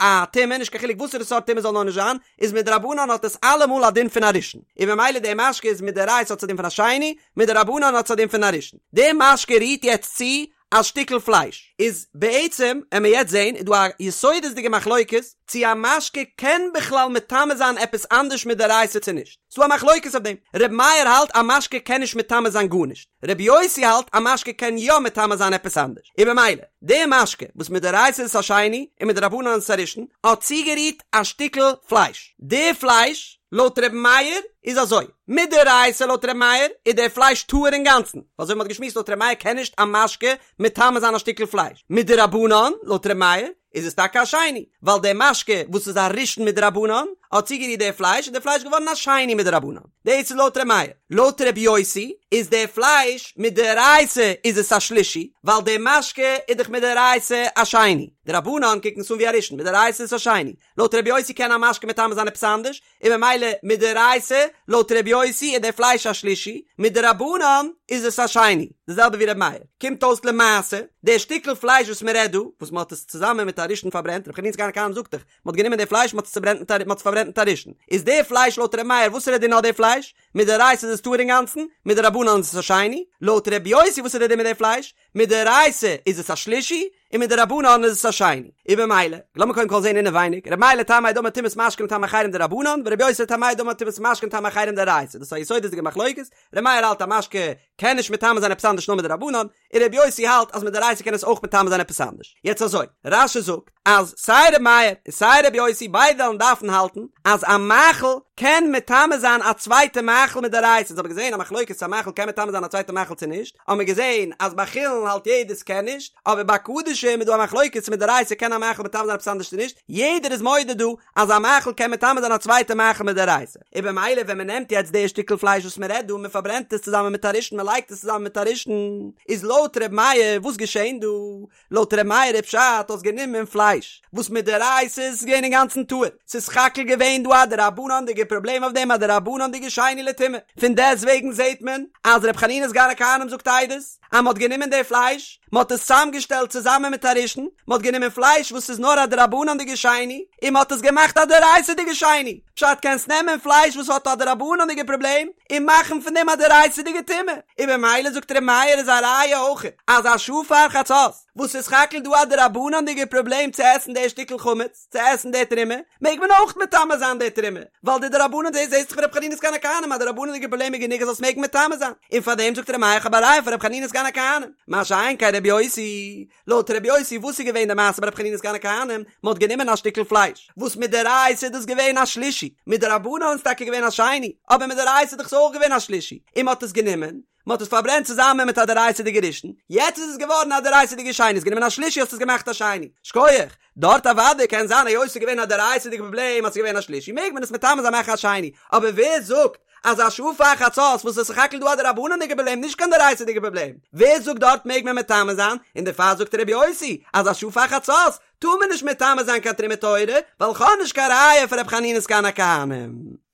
א טומאה, נישט קיין חילוק וואסערע סארט טומאה זאל נאר נישט זיין, איז מדרבנן האט עס אלעמאל א דין פון א ראשון. און ממילא די משקה איז מדאורייתא האט עס א דין פון א שני, מדרבנן האט עס א דין פון א ראשון. די משקה רירט יעצט צו א שטיקל פלייש איז בעצם עמיר יעצט זעהן איז דא א יסודות'דיגע מחלוקת צו א משקה קען בכלל מטמא זיין עפעס אנדערש מדאורייתא צו נישט, ס'דא א מחלוקת אויף דעם, ר' מאיר האלט א משקה קען נישט מטמא זיין גארנישט, ר' יוסי האלט א משקה קען יא מטמא זיין עפעס אנדערש, און במילא די משקה וואס מדאורייתא איז עס א שני און מדרבנן איז עס א ראשון האט צוגערירט א שטיקל פלייש, די פלייש לויט ר' מאיר איז אזוי, מדאורייתא לויט ר' מאיר איז דער פלייש טהור אינגאנצן, ווייל אזוי ווי מ'האט געשמועסט לויט ר' מאיר קען נישט א משקה מטמא זיין א שטיקל פלייש, מדרבנן לויט ר' מאיר איז עס טאקע א שני, ווייל דער משקה וואס איז א ראשון מדרבנן האט צוגערירט דער פלייש איז דער פלייש געווארן א שני מדרבנן, דאס איז לויט ר' מאיר, לויט ר' יוסי איז דער פלייש מדאורייתא איז עס א שלישי, ווייל דער משקה איז דאך מדאורייתא א שני, די רבנן קוקן עס אן ווי א ראשון, מדאורייתא איז עס א שני, לויט ר' יוסי קען א משקה מטמא זיין עפעס אנדערש, און ממילא מדאורייתא, לויט ר' יוסי איז דער פלייש א שלישי, מדרבנן איז עס א שני, די זעלבע ווי ר' מאיר. קומט אויס למעשה, דער שטיקל פלייש וואס מען רעדט דא, וואס מען האט עס צוזאמען מיט א ראשון פארברענט, ר' חנינא סגן הכהנים זאגט דאך, מען האט גענומען די פלייש מען האט עס צוברענט מיט א מען האט עס פארברענט מיט א ראשון, איז דער פלייש לויט ר' מאיר וואס איז דער דין אויף די פלייש? מדאורייתא איז עס טהור אינגאנצן, מדרבנן איז עס א שני, לויט ר' יוסי וואס איז דער דין מיט די פלייש? מדאורייתא איז עס א שלישי, און מדרבנן איז עס א שני. און במילא, לאמיר קודם כל זען אינעווייניג, ר' מאיר לטעמיה דאמר טומאת משקין לטמא אחרים דרבנן, ור' יוסי לטעמיה דאמר טומאת משקין לטמא אחרים דאורייתא. דאס איז א יסודות'דיגע מחלוקת, ר' מאיר האלט א משקה קען נישט מטמא זיין עפעס אנדערש נאר מדרבנן, און ר' יוסי האלט אז מדאורייתא קען עס אויך מטמא זיין עפעס אנדערש. יעצט אזוי, רש"י זאגט אז סיי ר' מאיר און סיי ר' יוסי ביידע וועלן דארפן האלטן אז א מאכל קען מטמא זיין א צווייטע מאכל מדאורייתא, אונז האבן געזען א מחלוקת צו א מאכל קען מטמא זיין א צווייטע מאכל צו נישט, האבן מיר געזען אז ביי חולין האלט יעדער ס'קען נישט, אבער ביי קדשים איז דא א מחלוקת צו מדאורייתא קען א מאכל מטמא זיין עפעס אנדערש צו נישט, יעדער איז מודה דא אז א מאכל קען מטמא זיין א צווייטע מאכל מדאורייתא, און במילא ווען מען נעמט יעצט די שטיקל פלייש וואס מען רעדט דא און מען פארברענט עס צוזאמען מיט א ראשון מען לייגט עס צוזאמען מיט א ראשון, איז לויט ר' מאיר וואס געשען דא? לויט ר' מאיר איז פשט האסט גענומען פלייש וואס מדאורייתא איז עס געווען אינגאנצן טהור, ס'איז סך הכל געווען דא א דרבנן'דיגע פראבלעם אויף דעם א דרבנן'דיגע שני לטומאה, פון דעסט וועגן זעט מען אז ר' חנינא סגן הכהנים זאגט עדות אז מ'האט גענומען די פלייש מ'האט עס צוזאמגעשטעלט צוזאמען מיט א ראשון, מ'האט גענומען פלייש וואס איז נאר א דרבנן'דיגע שני און מ'האט עס געמאכט א דאורייתא'דיגע שני. פשט קענסט נעמען פלייש וואס האט א דרבנן'דיגע פראבלעם און מאכן פון דעם א דאורייתא'דיגע טומאה, און במילא זאגט ר' מאיר איז א ראיה אויך אז א שעה פאר חצות וואס איז סך הכל דא א דרבנן'דיגע פראבלעם צו עסן די שטיקל חמץ, צו עסן די תרומה, מעג מען אויך מטמא זיין די תרומה, ווייל די דרבנן דאס זעהט זיך פון ר' חנינא סגן הכהנים אז די דרבנן'דיגע פראבלעם איז גענוג אז זאלסט מעגן מטמא זיין, און פארדעם זאגט ר' מאיר כ'האב א ראיה פון ר' חנינא סגן הכהנים, מה שאין כן ר' יוסי. לויט רבי יוסי וואס איז געווען די מעשה ביי רבי חנינא סגן הכהנים, מען האט גענומען א שטיקל פלייש, וואס מדאורייתא איז דאס געווען א שלישי, מדרבנן איז טאקע געווען א שני, אבער מדאורייתא איז דאך עס אויך געווען א שלישי, און מען האט עס גענומען, מען האט עס פארברענט צוזאמען מיט א דאורייתא'דיגע ראשון, יעצט איז עס געווארן א דאורייתא'דיגע שני, האסט גענומען א שלישי האסט עס געמאכט א שני, שכוח, דארט אוודאי קען זיין היות עס איז געווען א דאורייתא'דיגע פראבלעם אז עס איז געווען א שלישי מעג מען עס מטמא זיין מאכן א שני, אבער ווער זאגט. אז א שעה פאר חצות וואס איז סך הכל דא א דרבנן'דיגע פראבלעם נישט קיין דאורייתא'דיגע פראבלעם, ווער זאגט דארט מעג מען מטמא זיין, און דערפאר זאגט רבי יוסי אז א שעה פאר חצות טאר מען נישט מטמא זיין קיין תרומה טהורה, ווייל כ'האב נישט קיין ראיה פון ר' חנינא סגן הכהנים.